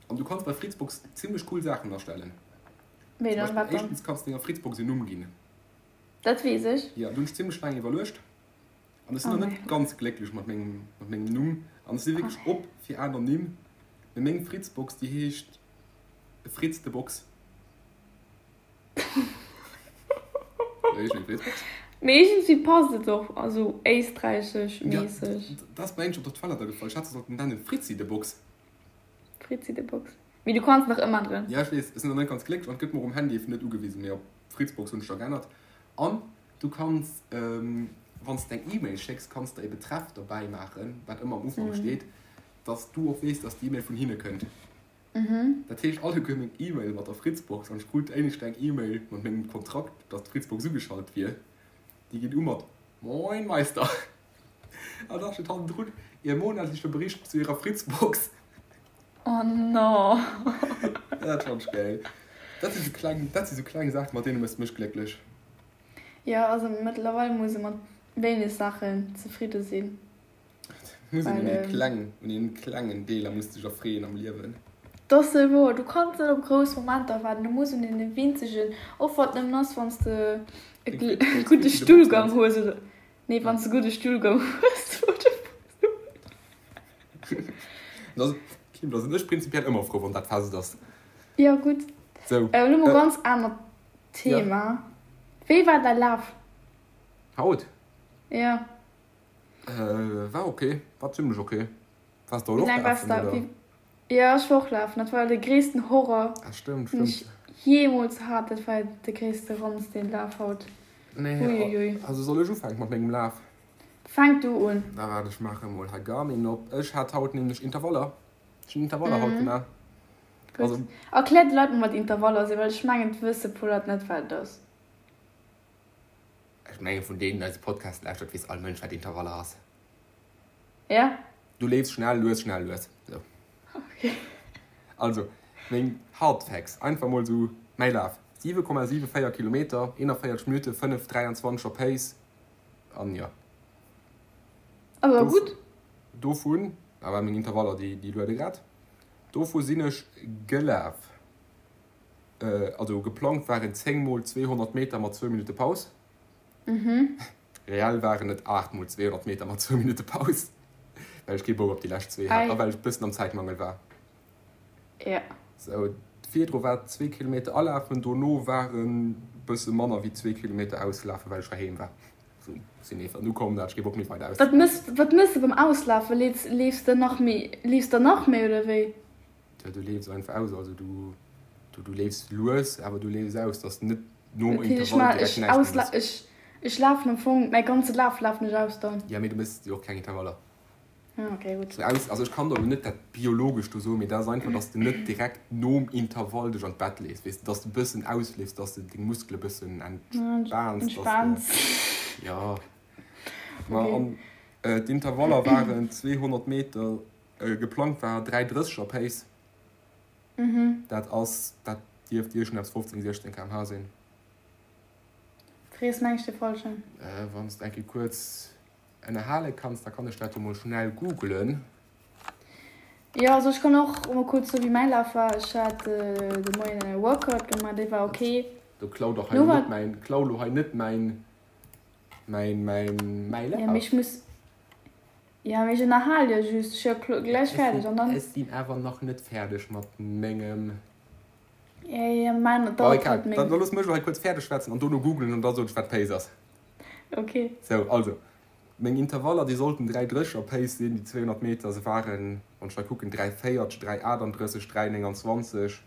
An du kanns bei Fritzbox zimmlech cool Saachen astellen. Wéi Zum dann? Beispill, Wat dann? éischtens kanns de denger Fritzbox en Numm ginn. Dat weess ech. Jo, do hunn ech zimmlech laang iwwerluecht. An ech sinn Oh nach mäi net Gott. ganz glécklech mat mengem, mat mengem Numm. An ech si Oh wierklech mäi op fir aner Nimm. Mee meng Fritzbox, déi heescht Fritz de Box. Wéi heescht meng Fritzbox? Mee iergendwéi passt et och, also éisträichesch Ja, méisseg. dat ass mir eigentlech op der Toilette agefall. Ech hätt se sollten nennen Fritzi de Box. Fritzi de Box. Mee du kanns nach ëmänneren. Ja, ech weess. Ech sinn nach net ganz glécklech an et gëtt mer um Handy net ugewisen. Mee op Fritzbox hunn ech da geännert. An Du kanns, wann s de eng E-Mail schécks, kanns de e Betreff derbäi maachen, wat ëmmer am Ufank steet, dass du och weess, dass déi E-Mail vun hinne kënnt. Dat heescht, alleguer meng E-Maile mat der Fritzbox, an ech krut éinescht eng E-Mail mat mengem Kontrakt, dass d'Fritzbox ugeschalt wier, déi geet u mat Moin Meister! An da steet hannendrun, Ihr monatlicher Bericht zu Ihrer Fritzbox. Oh no! Dat fannt ech gäil. Dat si sou kleng, dat si sou kleng Saachen, mat deene méchs de mech glécklech. Jo, also mëttlerweil muss e mat wéineg Saachen zefridde sinn. Muss een Well un ee ähm. kleng, un een klengen Deeler muss dech erfreeën am Liewen. 't ass sou wouer, du kanns net op grouss Momenter waarden, du muss un deene winzegen, och wann et nëmmen ass wann s de e Deng Fritzbox gudde Fritzi de Box Stullgang nenns. hues oder, nee, wann s de gudde Stullgang hues, oder. Da Kim, da sinn ech prinzipiell ëmmer frou, wann dat fest ass. Jo, gutt. Sou. Elo mol ganz anert Thema. Wéi war däi Laf? Haut? Jo. War ok, war zimlech ok. Waars de haut och lafen, oder? Jo, ech war och lafen. Dat war de gréissten Horror, Ah, stimmt, den ech stimmt. jeemools hat. Dat war de gréisste Ranz, deen Laf haut. Nee, Uiuiui. also soll ech ufänken mat mengem Laf? Fänk du un. Da waart, ech maache mol hei Garmin op. Ech hat haut nämlech Intervaller. Ech hunn Intervaller haut gemaach. Gutt. Also. Erklär de Leit mol, wat Intervaller sinn, well ech mengen, et wësse puer Leit net, wat et ass. Ech mengen, vun deenen, déi eise Podcast lauschtert, weess all Mënsch, wat Intervaller ass. Ja. Du leefs schnell, lues, schnell, lues. Sou. Okay. Also, meng Hard Facts, einfach mol sou mäi Laf, 7,74 Kilometer, 41 Minutte, 5,23 er Pace an jo. Awer gutt. Dovun, dat ware meng Intervaller, déi, déi luede grad, dovu sinn ech gelaf, also geplangt waren 10 mol 200 Meter mat zwou Minutte Paus. Reell waren et 8 mol 200 Meter mat zwou Minutte Paus, well ech kee Bock op déi lescht zwee hat a well ech e bëssen am Zäitmangel war. Ja. Sou, virdru war zwee Kilometer alafen, dono waren bësse manner wéi zwee Kilometer auslafen, well ech heiheem war. Sou, sinn nees an ukomm, da hat ech kee Bock méi weider Wat mëss, wat mëss de beim Auslafen? Leefs, leefs de nach méi, leefs de nach méi oder wéi? Jo, du leefs einfach aus, also du, du, du leefs lues, awer du leefs aus, dass de net nom Okay, ech Intervall ma, direkt ech näischt méi ausla, mëss. ech, ech lafen am Fong, mäi ganze Laf lafen ech aus dann. Ja, mee du mëss jo och keng Intervaller. Ah, okay, gutt. Sou aus, also ech kann der elo net dat biologesch do soen, mee dat ass einfach, dass de net direkt nom Intervall dech an d'Bett lees, weess de, dass de e bëssen ausleefs, dass de deng Muskele bëssen entspaans, dass de, Entspaans. jo. Ma Okay. an d'Intervaller waren 200 Meter Geplangt war 3,30 er Pace. Dat ass, dat dierft iergendeppes 15, 16 km/h sinn. Frees meng ech de falschen. Wann s de eng Kéier kuerz ënnerhale kanns, da kann ech dat jo mol schnell googlen. Jo, also ech kann och mol kuerz soe wéi mäi Laf war. Ech hat de Moien e Workout gemaach, dee war ok. Do klau dach hei net mäin, klau lo hei net mäin, mäin, mäin, mäi Laf. Jo, mee ech muss. Jo, mee ech ënnerhal jo just, ech jo gläich fäerdeg an dann. Ech sinn awer nach net fäerdeg mat mengem. Jo, jo, mäin dauert halt méi. Da looss mech elo hei kuerz fäerdeg schwätzen an dono googlen an da soen ech wat Pace ass. Ok. Sou, also, meng Intervaller déi sollten 3,30 a Pace sinn, déi 200 Meter, se waren, wann ech hei kucken, 3,40, 3,38, 3,29.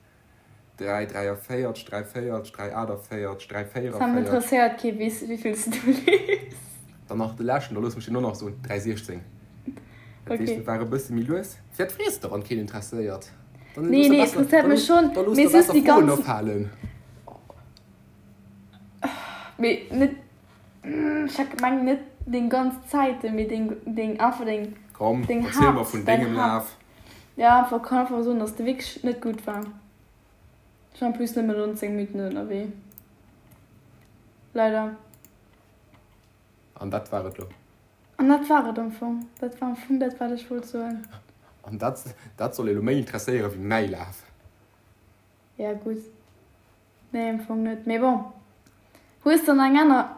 3, 43, 3, 40, 3, 48, 3, 44. Sam, interesséiert kee wéi vill s du leefs. Dann nach de leschten, da looss mech deen och nach soen, 3, 16. Dat heescht, et war e bësse méi lues. Firwat frees de, wann keen interesséiert? Dann Nee, nee, interesséiert mech schonn, da looss mee der just besser déi Froen ganz. ophalen. Mee net, ech hat gemengt net deng ganz Zäiten, mee deng, deng, einfach deng, Komm, deng erziel mer Haapt, vun däin dengem Haapt. Laf. Ja, einfach kann einfach soen, dass de wierklech net gutt war. Ech war en plus nëmmen 19 Minutten ënnerwee. Leider. An dat war et lo. An dat war et am Fong. Dat war am Fong dat, wat ech wollt soen. An dat, dat soll ee lo méi interesséiere wéi mäi Laf. Ja, gutt. Nee, am Fong net. Mee bon. Hues de nach eng aner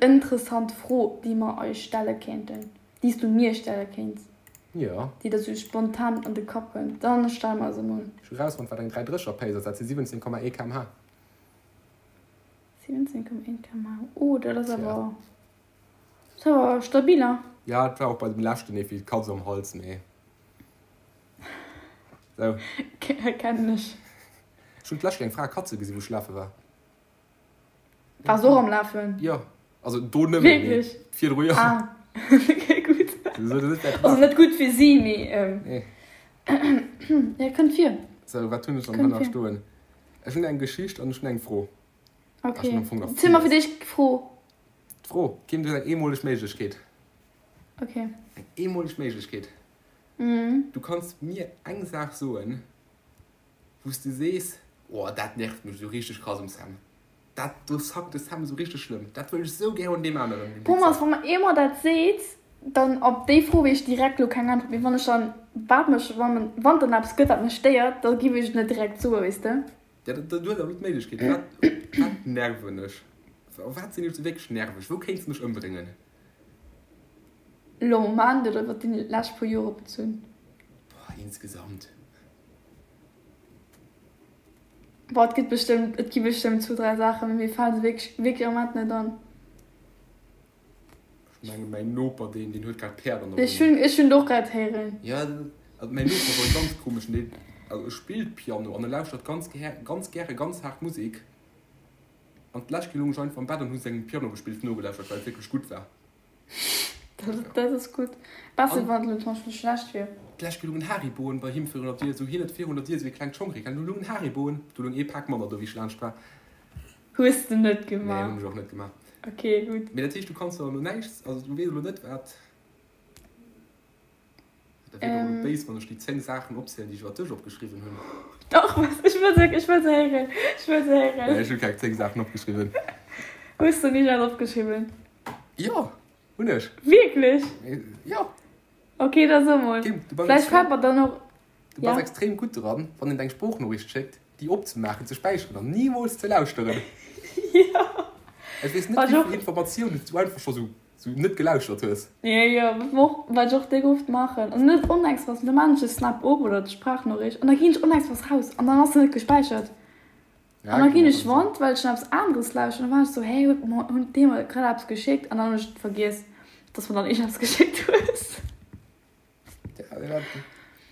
interessant Fro, déi mer eis stelle kéinten? Déi s du mir stelle kéints? Jo. Déi der sou spontan an de Kapp kënnt? Dann stell mer se mol. Ech hu rausfonnt, wat eng 3,30er Pace ass. Dat si 17,1 km/h. 17,1 km/h. Oh, dat ass awer, dat ass awer stabil, hein? Ja, et war och bei dem leschten ee wéi d'Katz am Hals, mee. Sou. Kennen ech. Ech hunn d'lescht eng Fra Katze gesinn, wou ech lafe war. Wars och am Lafen? Jo, also do nëmmen, mee Wierklech? virdru jo. Ah, okay, gutt. Sou, dat ass Also net gutt fir si, mee Nee. ja, kënnt vir. Sou, wat hunn ech dann Kënnt hei nach vir. stoen? Ech hunn eng Geschicht an ech hunn eng Fro. Ech Okay. hunn am Fong nach Ziel mer villes. fir d'éischt d'Fro. D'Fro, Kim, du hues eng eemoleg Méiglechkeet. Okay. Eng eemoleg Méiglechkeet. Mhm. Du kanns mir eng Saach soen, wou s de sees, Oh, dat nervt mech esou richteg krass um Sam. Dat do sackt de Sam esou richteg schlëmm. Dat wëll ech esou gär un deem aneren, deem Thomas, Wichser. wa mer eemol dat seet, dann op déi Fro weess ech direkt elo keng Äntwert. Mee wann ech dann, wat mech, wann, wann dann eppes gëtt, wat mech stéiert, da giff ech et net direkt soen, weess de. Ja, du hues awer elo d'Méiglechkeet. Wat, wat nerven ech? Op wat sinn ech esou wierklech nerveg? Wou kéints de mech ëmbréngen? Elo am Moment oder iwwer déi lescht puer Jore bezunn? Insgesamt. Boah, et gëtt bestëmmt, et gi bestëmmt zwou, dräi Saachen, mee mir fale se wierklech, wierklech am Moment net an. Ech mengen, mäin Noper, deen, deen huet grad Päerd an der Ech hunn, ech hunn et och grad héieren. Ja, also mäin Noper ass och e ganz komeschen, deen, also e spillt Piano an e lauschtert ganz gär, ganz gäre ganz haart Musek. An d'lescht Kéier lung ech einfach am Bett an hu sengem Pianogespills nogelauschtert, well et wierklech gutt war. Dat, dat ass gutt. Besser, wann et elo zum Beispill schlecht wier. D'lescht Kéier lungen Hariboen bei him virun der Dier, esou hien huet virun der Dier esou ee klengt Schongregal, do lungen Hariboen, do lung ee Pak manner do wéi ech laanscht war. Hues de net gemaach? Nee, hunn ech och net gemaach. Ok, gutt. Mee dat heescht, du kanns der elo näischt, also du weess elo net wat. Dat wier doch elo béis, wann ech déi 10 Saachen opzielen, déi ech iwwer dech opgeschriwwen hunn. Dach, ech wëll se, ech wëll se héieren, ech wëll se héieren. Nee, ech hu keng 10 Saachen opgeschriwwen. Hues de nicht alles opgeschriwwen? Jo, hunn ech. Wierklech? Jo. Ok, da so mol. Kim, du bass Vläicht fält mer dann och. Du bass extrem gutt dran, wann een der eng Sproochnoriicht schéckt, déi opzemaachen, ze späicheren an nimools ze lauschteren. Jo. Ech weess net, wéi vill Informatiounen s du einfach scho sou net gelauschtert hues. Jo, jo, wat ech och déck oft maachen, also net onexpress, mee da maachen ech de Snap op oder d'Sprachnoriicht an da ginn ech onexpress raus an dann ass se net gespäichert. An da ginn ech wand, well ech dann eppes aneres lauschteren, an da war ech sou, hä, huet mer, hunn dee mer grad eppes geschéckt? An dann hunn ech vergiess, dass mer dann iergendeppes geschéckt hues.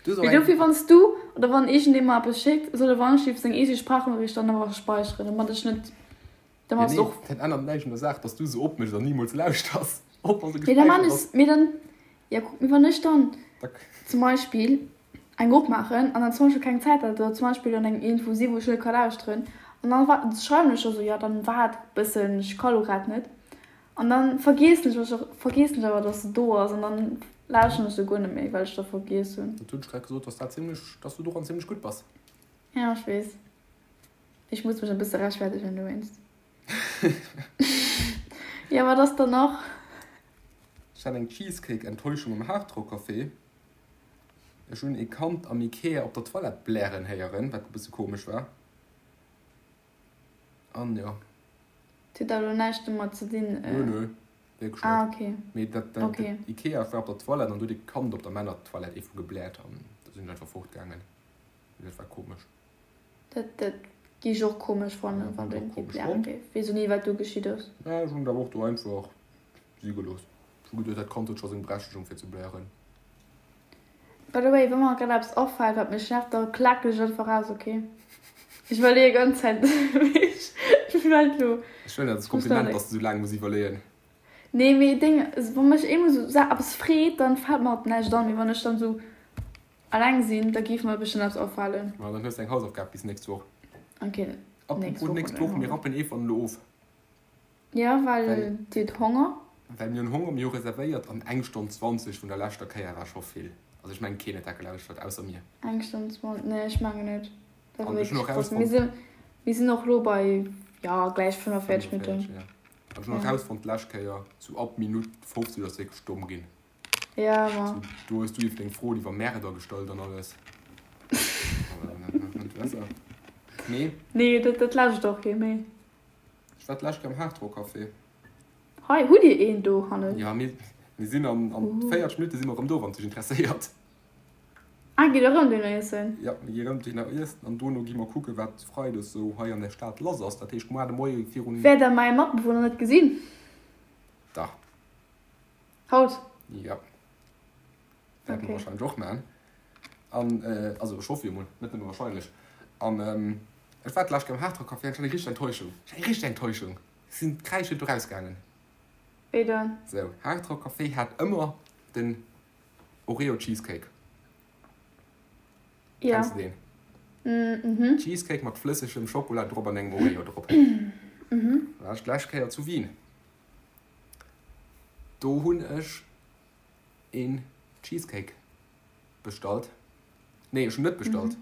Mee dofir, wann s du oder wann iergendee mer eppes schéckt, soll e wann-ech-lief seng eege Sprachnoriicht dann awer späicheren, domat ech net, domat s och. Dat ännert näischt un der Saach, dass du se opméchs an nimools lauschters, och wa se Mee da gespäichert man ass. ech, mee dann, ja kuck, mee wann ech dann zum Beispill eng opmaachen an dann zum Beispill keng Zäit hat oder zum Beispill an engem iergendwou si wou ech net ka lauschteren an dann wa schreiwen ech da sou, jo dann waart bëssen, ech ka lo grad net an dann vergiessen ech och vergiessen ech awer dass se do ass an dann lauschteren ech se guer net méi well ech da vergiess hunn. Dat hunn ech grad gesot, dass dat zimlech, dass du doran zimlech gutt bass. Ja ech weess, ech muss mech e bësse rechtfertegen dowéinst. Jo wat ass dann nach? Ech hat eng Cheesecake-Enttäuschung am Hardrock Café. Ech hunn ee Kand am Ikea op der Toilette blären héieren, wat e bësse komesch war. An jo. Dat huet awer elo näischt domat ze dinn. Nö, nö, wierklech net. Ah, okay. Mee dat, dat, Okay. dat Ikea, ech war op der Toilette an do huet ee Kand op der Männertoilette ee vu gebläert an da sinn ech einfach fortgaangen. Dat war komesch. Dat, dat gi ech och komesch fannen, Ja, wann hunn ech do och ee komesch bläre fonnt. géif. Weess och ni, wat do geschitt ass. Mä ech hunn et awer och do einfach si gelooss. Ech hu geduet, dat Kand huet scho seng Berechtigung fir ze blären. By the way, wa mer grad eppes afält, wat mech nervt, da klaken ech einfach aus, ok? Ech iwwerleeë ganz Zäit, mee ech meld lo. Ech huelen dat als Kompliment, dass de sou laang muss iwwerleeën. Nee, mee Deng, wa mech eemol sou eppes freet, dann fält mer alt näischt an. Mee wann ech dann sou alleng sinn, da géif mer bestëmmt eppes afalen. Ma dann hues de eng Hausaufgab bis nächst Woch. Ok, nächst Apropos Woch nächst hunn ech Woch, mir rappen Eva elo of. Ja, well Dir hutt Honger. Well mir hunn Honger, mir hu reservéiert an eng Stonn 20 vun der leschter Kéier war scho vill. Also ech mengen keen huet dat gelauschtert ausser mir. Eng Stonn 20, nee ech mengen net. Dat war An ech hunn wierklech och krass. Mir erausfonnt. sinn, mir sinn och lo bei, ja, gläich 45 Minutten. 45, ja. An ech hunn och Ja. erausfonnt d'lescht Kéier, sou ab Minutt 50 ass wierklech domm ginn. Ja, ma. Sou, do hues du iwwer deng Froen iwwer Märder gestallt an alles. Nee. Nee, dat, dat lauschtert och kee méi. Ech war d'lescht Kéier am Hard Rock Café. Hei, hutt Dir een do hannen? Ja, mir, mir sinn an, an 40 Minutte si mer erëm do, wann et dech interesséiert. Ah, gitt der erëm dohinner iessen? Ja, mir gi erëm dohinner iessen an dono gi mer kucken, wat freides esou hei an der Stad lass ass. Dat heescht, muar de Moie virun. Wäert der mäi Matbewunner net gesinn? Dach. Haut? Ja. Wäerte mer wahrscheinlech och man. An, also ech hoffe jo mol, net nëmme wahrscheinlech. An ech war d'lescht Kéier am Hard Rock Café an ech hat eng richteg Enttäuschung. Ech hat eng richteg Enttäuschung. Ech sinn kräischend do rausgaangen. Wéi dann? Sou, Hard Rock Café hat ëmmer den Oreo Cheesecake. Ja. Kenns de deen? Mhm. Cheesecake mat flëssegem Schokola drop an engem Oreo drop. Mhm. War ech d'lescht Kéier zu Wien. Do hunn ech een Cheesecake bestallt. Nee, ech hunn net bestallt.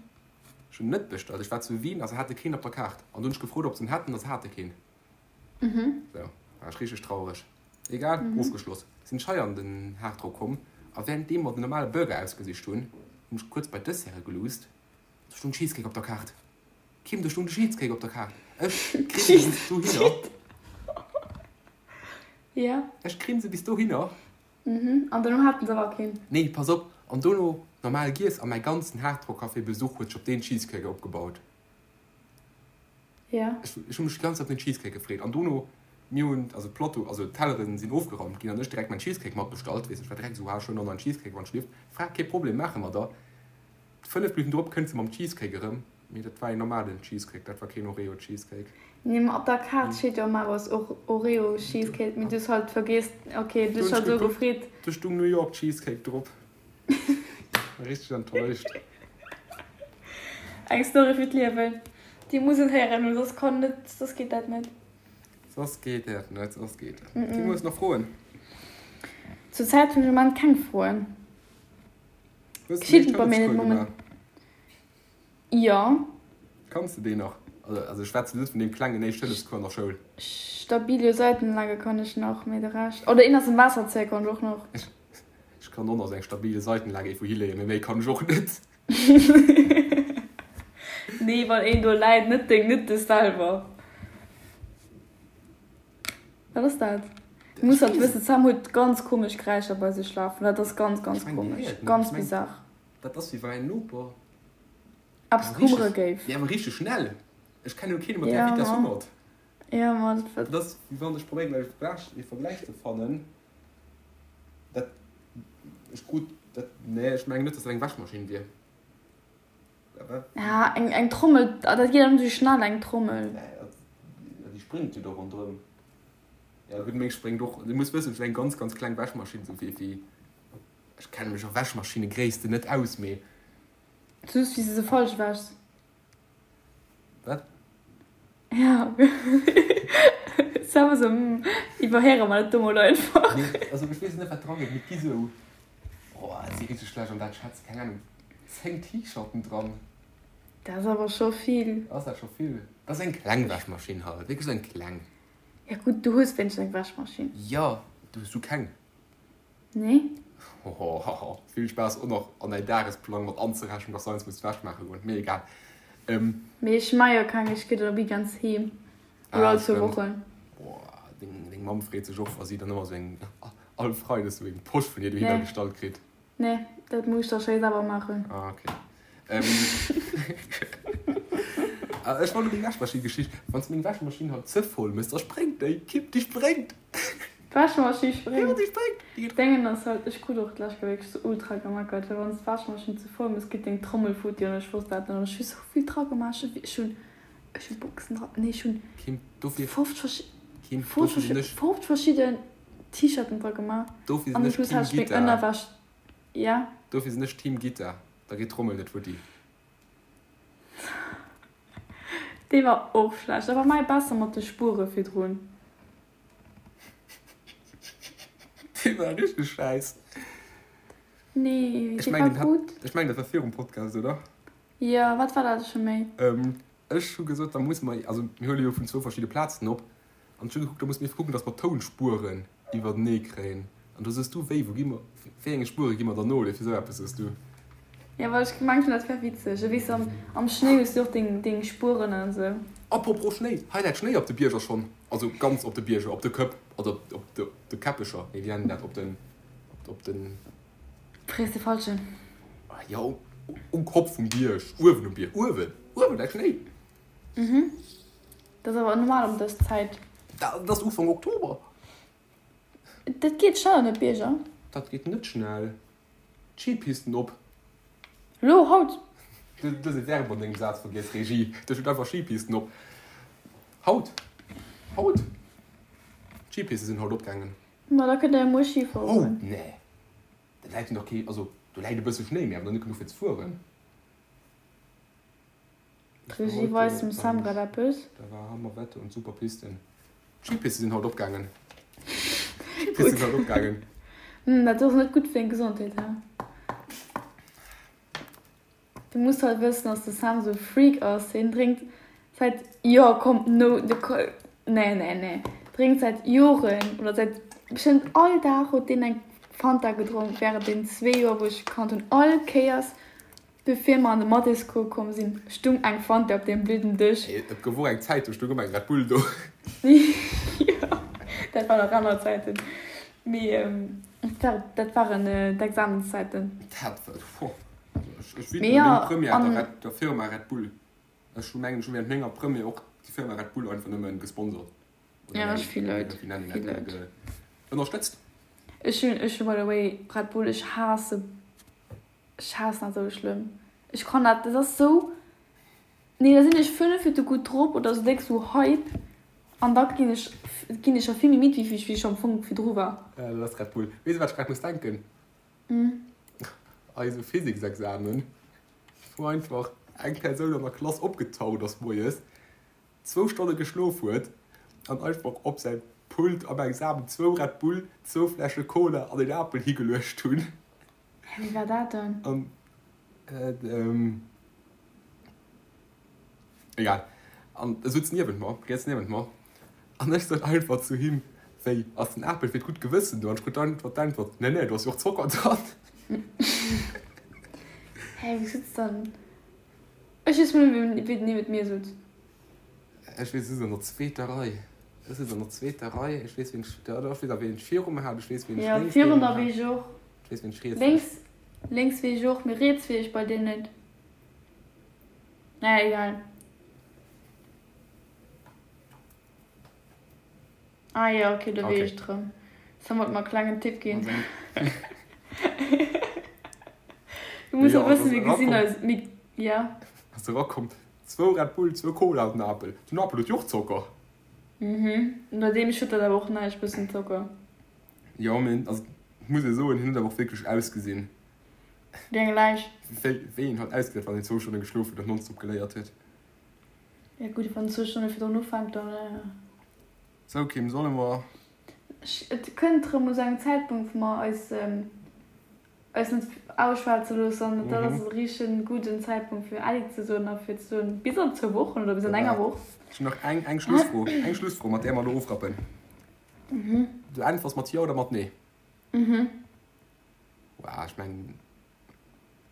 Ech hunn net bestallt. Ech war zu Wien a se hate keen op der Kaart. An du hunn ech gefrot, ob se en hätten a se hate keen. Sou, war ech richteg traureg. Egal, ofgeschloss. Sinn ech hei an den Hardrock komm a wärenddeem mer den normale Burger ausgesicht hunn, hunn ech kuerz bei d'Desserte geluusst. Do stoung Cheesecake op der Kaart. Kim, do stoung de Cheesecake op der Kaart. Ech grinse bis dohinner. Ja. Ech grinse bis dohinner. Mhm. An dono haten se awer keen. Nee, pass op, an dono. normal giess a mäi ganzen Hard Rock Café Besuch huet sech op deen Cheesecake opgebaut. Ja. Ech, ech hu mech déi ganz Zäit op den Cheesecake gefreet an dono, mir hunn, also d'Plateau, also d'Telleren sinn ofgeraumt ginn an ech direkt mäin Cheesecake matbestallt, weess, ech war direkt esou, ha ech huelen och nach en Cheesecake wann ech lieft. Fra, kee Problem, maache mer da. 5 Minutten drop kënnt se mam Cheesecake erëm, mee dat war een normalen Cheesecake, dat war keen Oreo Cheesecake. Nee, ma op der Kaart steet jo ëmmer och Oreo Cheesecake, mee du hues halt vergiess, ok, du hues halt esou gefreet. Do stung New York Cheesecake drop. Richteg enttäuscht. Eng Story fir d'Liewen. Déi muss een héieren, well soss kann net, soss geet dat net. Soss geet dat net, soss geet dat net. Kim, hues nach Froen? Zur Zäit hunn ech am Moment keng Froen. Hues de Geschitt bei mir net moment. Jo. Kanns de deen nach? Also ech schwätzen net vun deem klengen Éischt-Hëllefscours an der Schoul. Stabilo Seitenlage kann ech nach, mee de Rescht. Oder een ass am Waasserzéier kann ech och nach. Ech kann och nach sou eng stabile Seitenlage iergendwou hileeën, mee méi kann ech och net. Nee, wann een do läit, net deng, net dech selwer. Wat ass dat? Du muss halt wëssen, d'Sam huet ganz komesch Geräischer bei sech lafen. Dat ass ganz, ganz komesch. Ganz bizarre. Dat ass wéi wann mäin Noper Eppes hummere géif. Nee, awer richteg schnell. Ech kennen jo keen mat där Vitess hummert. Ja, ma dat. Dat ass wéi wann ech probéieren e Vergläich ze fannen. Dat ech krut dat nee, ech mengen net, dass dat eng Wäschmaschinn wier. Ja, eng, eng Trommel, dat geet awer net esou schnell, eng Trommel. Nee, dat, déi spréngt jo do ronderëm. Ja gutt, meng spréngt och. Du muss wëssen, ech hunn eng ganz, ganz kleng Wäschmaschinn, esou wéi, wéi, ech kenne mech a Wäschmaschinne-Gréissten net aus, mee. Just wéi s de se falsch wäschs. Wat? Ja. Sam esou, hm, iwwerhéiere mer dat do mol einfach. Nee, also ech weess net wat dran geet, mee et gi sou, oh et si richteg schlecht an dat schätze, keng Ahnung, 10 T-Shirten dran. Dat ass awer scho vill. Ass dat scho vill? Dat ass eng kleng Wäschmaschinn halt, wierklech sou eng kleng. Ja gutt, du hues wéinstens eng Wäschmaschinn. Jo, du hues du keng? Nee. Hohohoho, vill Spaass och nach an däin Dagesplang mat anzerechnen, dass du eins muss d'Wäsch maache goen. Mee egal. Mee ech maa jo keng, ech gi dann op ganz heem. Oder all zwou Wochen. Boah, deng, deng Mamm freet sech och, wa si dann ëmmer sou eng, all Freides sou eng Posch vun hir dohinner gestallt kritt. Nee, dat muss ech da schéi selwer maachen. Ah, okay. Ähm, ech wollt meng Wäschmaschinn-Geschicht. Wann s de meng Wäschmaschinn halt ze voll mëss, da spréngt déi. Kipp, déi spréngt! D'Wäschmaschinn spréngt? Jo, déi spréngt! Déi geet. Dengen ass halt, ech krut och d'lescht Kéier wierklech sou ultra gemeckert, well wann s d'Wäschmaschinn ze voll mëss, geet deng Trommel futti an ech wosst dat net an ech hu sou vill dra gemaach, ech hunn, ech hu Boxen dra, nee ech hunn Kim, dofir, 50 verschi, Kim, 50 dofir sinn verschi, ech. 50 verschidden T-Shirten dra gemaach Dofir sinn an ech plus Team hat ech meng Gitta. Ënnerwäsch, ja. Dofir sinn ech Team Gitta, da geet d'Trommel net futti. Dee war och schlecht, awer mäi besser mat de Spuere virdrun. Dee war richteg schäiss. Nee, Ech dee mengen, war den hat, gutt. ech mengen, dat war virum Podcast, oder? Jo, wat war dat scho méi? Ech hu gesot, da musse mer, also mir huele jo vun zwou verschidde Plazen op, an ech hu gekuckt, da musse mir kucken, datt mer d'Tounspueren iwwertenee kréien. An do soos du, wéi, wou gi mer, wéi enge Spuere gi mer dann no, oder fir esou eppes soos du. Jo, well ech gemengt hunn, dat wär witzeg. A weess, am, am Schnéi hues du och deng, deng Spueren an esou. Apropos Schnéi, hei läit Schnéi op de Bierger schonn, also ganz op de Bierger, op de Këpp, also op, op de, op de Käppecher, nee, wéi nennen dat, op den, op, op den. Frees de Falschen. Jo, um Kopp vum Bierg, uewen um Bierg, uewen, uewen läit Schnéi. Mhm, dat ass awer normal ëm dës Zäit. Dat ass Ufank Oktober. Dat geet schnell an de Bierger. Dat geet net schnell. D'Skipisten op. Lo, haut? Du hues e Verb an dengem Saz vergiess, Regie. Do steet einfach Skipisten op. Haut. Haut. D'Skipiste sinn haut opgaangen. Ma da kënnt der jo muer Ski fueren. Haut? Nee. Da läit jo nach kee, also do läit e bësse Schnéi, mee awer nach net genuch fir ze fueren. D'Regie weist dem Sam grad eppes. Da war Hammer Wetter und super Pisten. D'Skipiste sinn haut opgaangen. D'Skipiste sinn haut opgaangen. Hm, dat ass net gutt fir deng Gesondheet, he? Du muss halt wëssen, dass de Sam sou e Freak ass. Hien drénkt säit, jo komm, no, de, nee, nee, nee, drénkt säit Joren oder säit bestëmmt all Dag huet deen eng Fanta gedronk während den zwee Joer wou ech e kannt hunn. All Kéiers bevir mer an de Mathéscours komm sinn, stung eng Fanta op deem blöden Dësch. Et gouf och eng Zäit, do stung ëmmer eng Red Bull do. Jo, dat waren nach aner Zäiten. Mee dat waren d'Examenszäiten. Dat war, boah. Ech widme meng Première der Red, der Firma Red Bull. Ech hu mengen, ech hu während menger Première och déi Firma Red Bull einfach nëmmen gesponsort. Oder ja, ech vill Leit. Wéi nennen een dat? Ënnerstëtzt. Ech hunn, ech hu by the way Red Bull, ech haasse, ech haassen dat esou schlëmm. Ech kann dat, dat ass esou, nee da sinn ech 5 Minutte gutt drop oder esou déck sou Hype an da ginn ech, ginn ech scho vill méi midd wéi wéi ech am Fong virdru war. Ja, dat ass Red Bull. Weess de wat ech grad muss denken? Eise Physiksexamen, wou einfach eng Persoun an der Klass opgetaucht ass moies, zwou Stonne geschlof huet an einfach op säi Pult am Examen zwou Red Bull, zwou Fläsche Cola an een Apel higeluecht hunn. Hä, wéi war dat dann? An, ähm, egal. An e sutz niewent mer, riets niewent mer. An ech sot einfach zu him, Wéi, ass den Apel fir d'gutt Gewëssen do? An ech krut einfach d'Äntwert, Nee, nee, do ass jo och Zocker dran. Hä, wéi sutz dann? Ech weess mol net, wéi den niewent mir sutz. Ech weess, ech sutz an der zweeter Rei. Ech sutz an der zweeter Rei. Ech weess, wien ech, jo, ech weess awer, wien ech viru mer hat. Ech weess, wien ech Jo, lénks virun niewent der hat. weess ech och. Ech weess, wien ech riets hat. Lénks, lénks weess ech och, mee riets weess ech bei deem net. Naja, egal. Ah jo, ok, do weess ech et rëm. Sam wollt mer e klengen Tipp ginn. Du muss jo wëssen, mir gesinn eis, mir, ja. Ass erakomm, zwou Red Bull, zwou Cola an den Apel. Den Apel huet jo och Zocker. Mhm, bei deem schëtt dat awer och näischt, bëssen Zocker. Jo, mee also muss ee soen, hien huet awer och wierklech ausgesinn. Wéi eng Läich. Wéi wéi een halt ausgesäit, wann een zwou Stonne geschlof huet an nonstop geléiert huet. Ja gutt, wann zwou Stonne virdrun ufänkt, dann. Sou Kim, solle mer. Et kënnt erëm u sou engem Zäitpunkt, wou mer eis eis net ausschwätze loossen an dat ass e richtegen gudden Zäitpunkt fir Äddi ze soen a fir ze soen bis an zwou Wochen oder bis an enger Woch. Ech hunn nach eng eng Schlussfro, eng Schlussfro, mat där mer elo ofrappen. Du äntwers mat Jo oder mat Nee? Wow, ech mengen.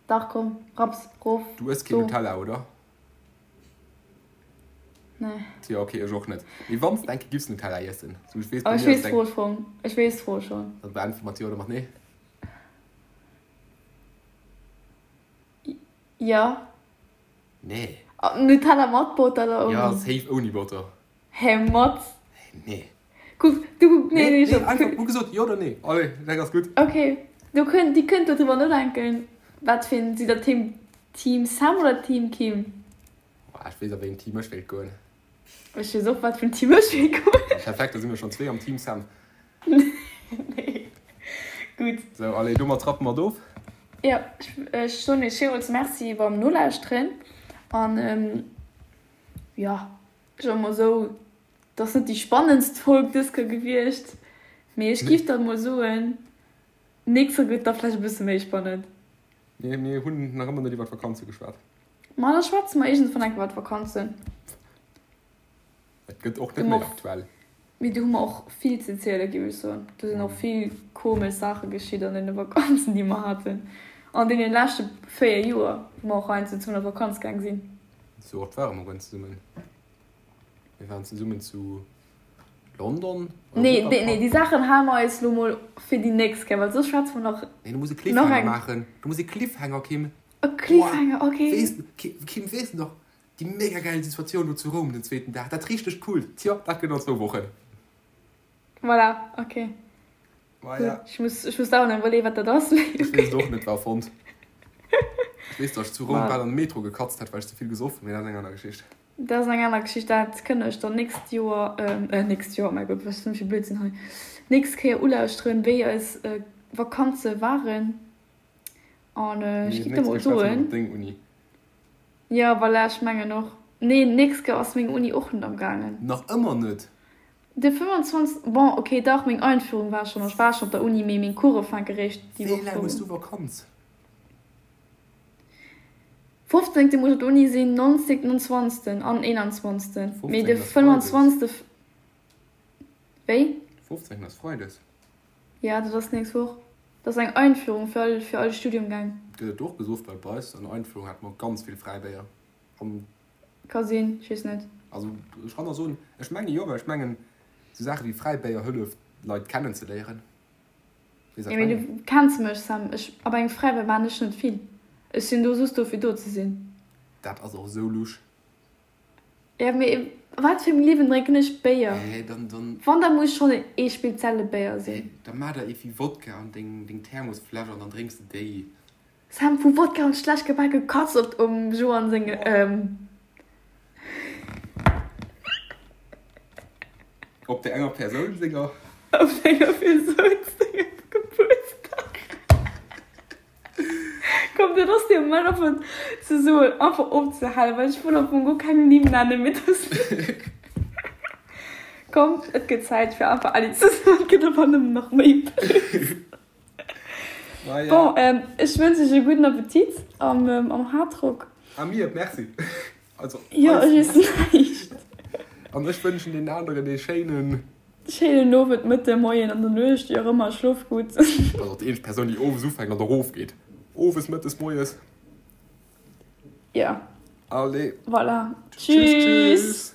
Dach komm, rapps, rof, Du ëss keen Nutella, oder? Nee. Tja, okay, ech och net. Mee wann s de eng Kéier giffs Nutella iessen, sou ech weess, bei mir ass et eng. Ech weess d'Fro schonn, ech weess d'Fro schonn. Dann beäntwere mat Jo oder mat Nee. Jo. Nee. Nutella mat Botter oder ouni? Jo, safe ouni Botter. Hä, mat? Nee. Kuck, du kuck, nee, nee, nee, einfach hu gesot jo oder nee. Allez, dat ass gutt. Okay, do kënnt, Dir kënnt dodriwwer nodenken, wat fir een, sidd der Team, Team Sam oder Team Kim? Boah, ech weess a wéi een Team ech wéilt goen. Ech weess och, wat fir en Team ech wéilt goen. Perfekt, da si mir schonn zwee am Team Sam. Nee, gutt. Sou, allez, domat rappe mer et of. Jo, ech soen iech villmools Merci beim Nolauschteren an, jo, ech soe mol esou, Et ass net déi spannendst Folg dës Kéier gewiescht, mee ech giff dann mol soen, nächst Kéier gëtt da vläicht e bësse méi spannend. Mir, mir hunn nach ëmmer net iwwer d'Vakanze geschwat. Ma da schwätze mer iergendwann eng Kéier iwwer d'Vakanzen. Et gëtt och net méi aktuell. Mee do hu mer och vill ze ziele giff ech soen. Do sinn och vill komesch Saache geschitt an deene Vakanzen déi mer haten an deene leschte 4 Joer, wou mer och heiansdo zesummen op Vakanz gaang sinn. Sou oft ware mer guer net zesummen. Mir waren zesummen zu London. Nee, nee, nee, déi Saachen hale mer eis lo mol fir déi nächst Kéier, well soss schwätze mer nach. Nee, du muss e Cliffhanger maachen. Du muss e Cliffhanger, Kim. E Cliffhanger, okay. Weess, Kim, weess de nach déi mega gäil Situatioun do zu Roum den zweeten Dag? Dat richteg coolt. Tjo, dat gëtt an zwou Wochen. Voilà, okay. Maja. Ech muss, ech muss dauernd iwwerleeën, wat dat ass. Ech weess et och net, war erfonnt. Ech weess, datt ech zu Roum bal an de Metro gekatzt hätt, well ech ze vill gesoff hunn, mee dat ass eng aner Geschicht. Dat ass eng aner Geschicht, dat kënnt der iech dann nächst Joer, äh, nächst Joer, mäi Gott, wat ass dat fir Blödsinn hei, nächst Kéier ulauschteren, wéi eis Vakanze waren. An ech Nee, giff der nächst mol Kéier schwätze mer soen. iwwer deng Uni. Jo, voilà, ech mengen och. Nee, nächst Kéier ass meng Uni och net am gaangen. Nach ëmmer net? De 25, bon ok dach, meng Einführung war schon, ech war schon op der Uni, mee meng Course fänke réischt déi Wéi Woch laang hues drop du un. Vakanz? 15. Muss ech op der Uni sinn, 19. an 20. An 21. Mee 15 de ass Freides. 25. Wéi? 15 ass Freides. Ja, dat ass nächst Woch. Dat ass eng Einführung fir all, fir all Studiumgäng. Gëtt et do och gesoff? Well bei eis an der Einführung hate mer ganz vill Fräibéier an. Ka sinn, ech weess net. Also ech kann der soen, ech menge jo, well ech mengen esou Saache wéi Fräibéier hëlleft Leit kennen ze léieren. Weess wat Jo, mee ech mengen? du kenns mech, Sam, ech, op engem Fräibéier maan ech net vill. Ech sinn do soss do fir do ze sinn. Dat ass och esou lusch. Ja mee wat fir engem Liewen drénken ech Béier? Hä dann dann. Wann da muss schonn ee spezielle Béier sinn. Hä da maach der ee wéi Wodka an deng deng Thermosfläsch an dann drénks de déi. Sam, vu Wodka an schlecht gebake Katz op um Joanne senge ähm. Op der enger Persoun senger. Op enger Persoun sengem Gebuertsdag. Komm, dat ass de Moment einfach ze soen, einfach opzehalen, well ech wëll am Fong guer keng Nimm nennen, mee dass. Komm, et gëtt Zäit fir einfach Äddi ze soen, et gëtt awer nëmmen nach méi blöd. Bon, ech wënsch iech e gudden Appetit am am Hardrock. A mir, merci. Also, Jo, ech iessen näischt. An ech wënschen deenen aneren ee schéinen. Schéinen Owend, Mëtten, Moien, an der Nuecht, wéi och ëmmer, schlof gutt. Dat ass och déi eenzeg Persoun, déi owes ufänkt an erofgeet. Owes, mëttes, moies. Jo. Allez. Voilà. Tschüss, tschüss.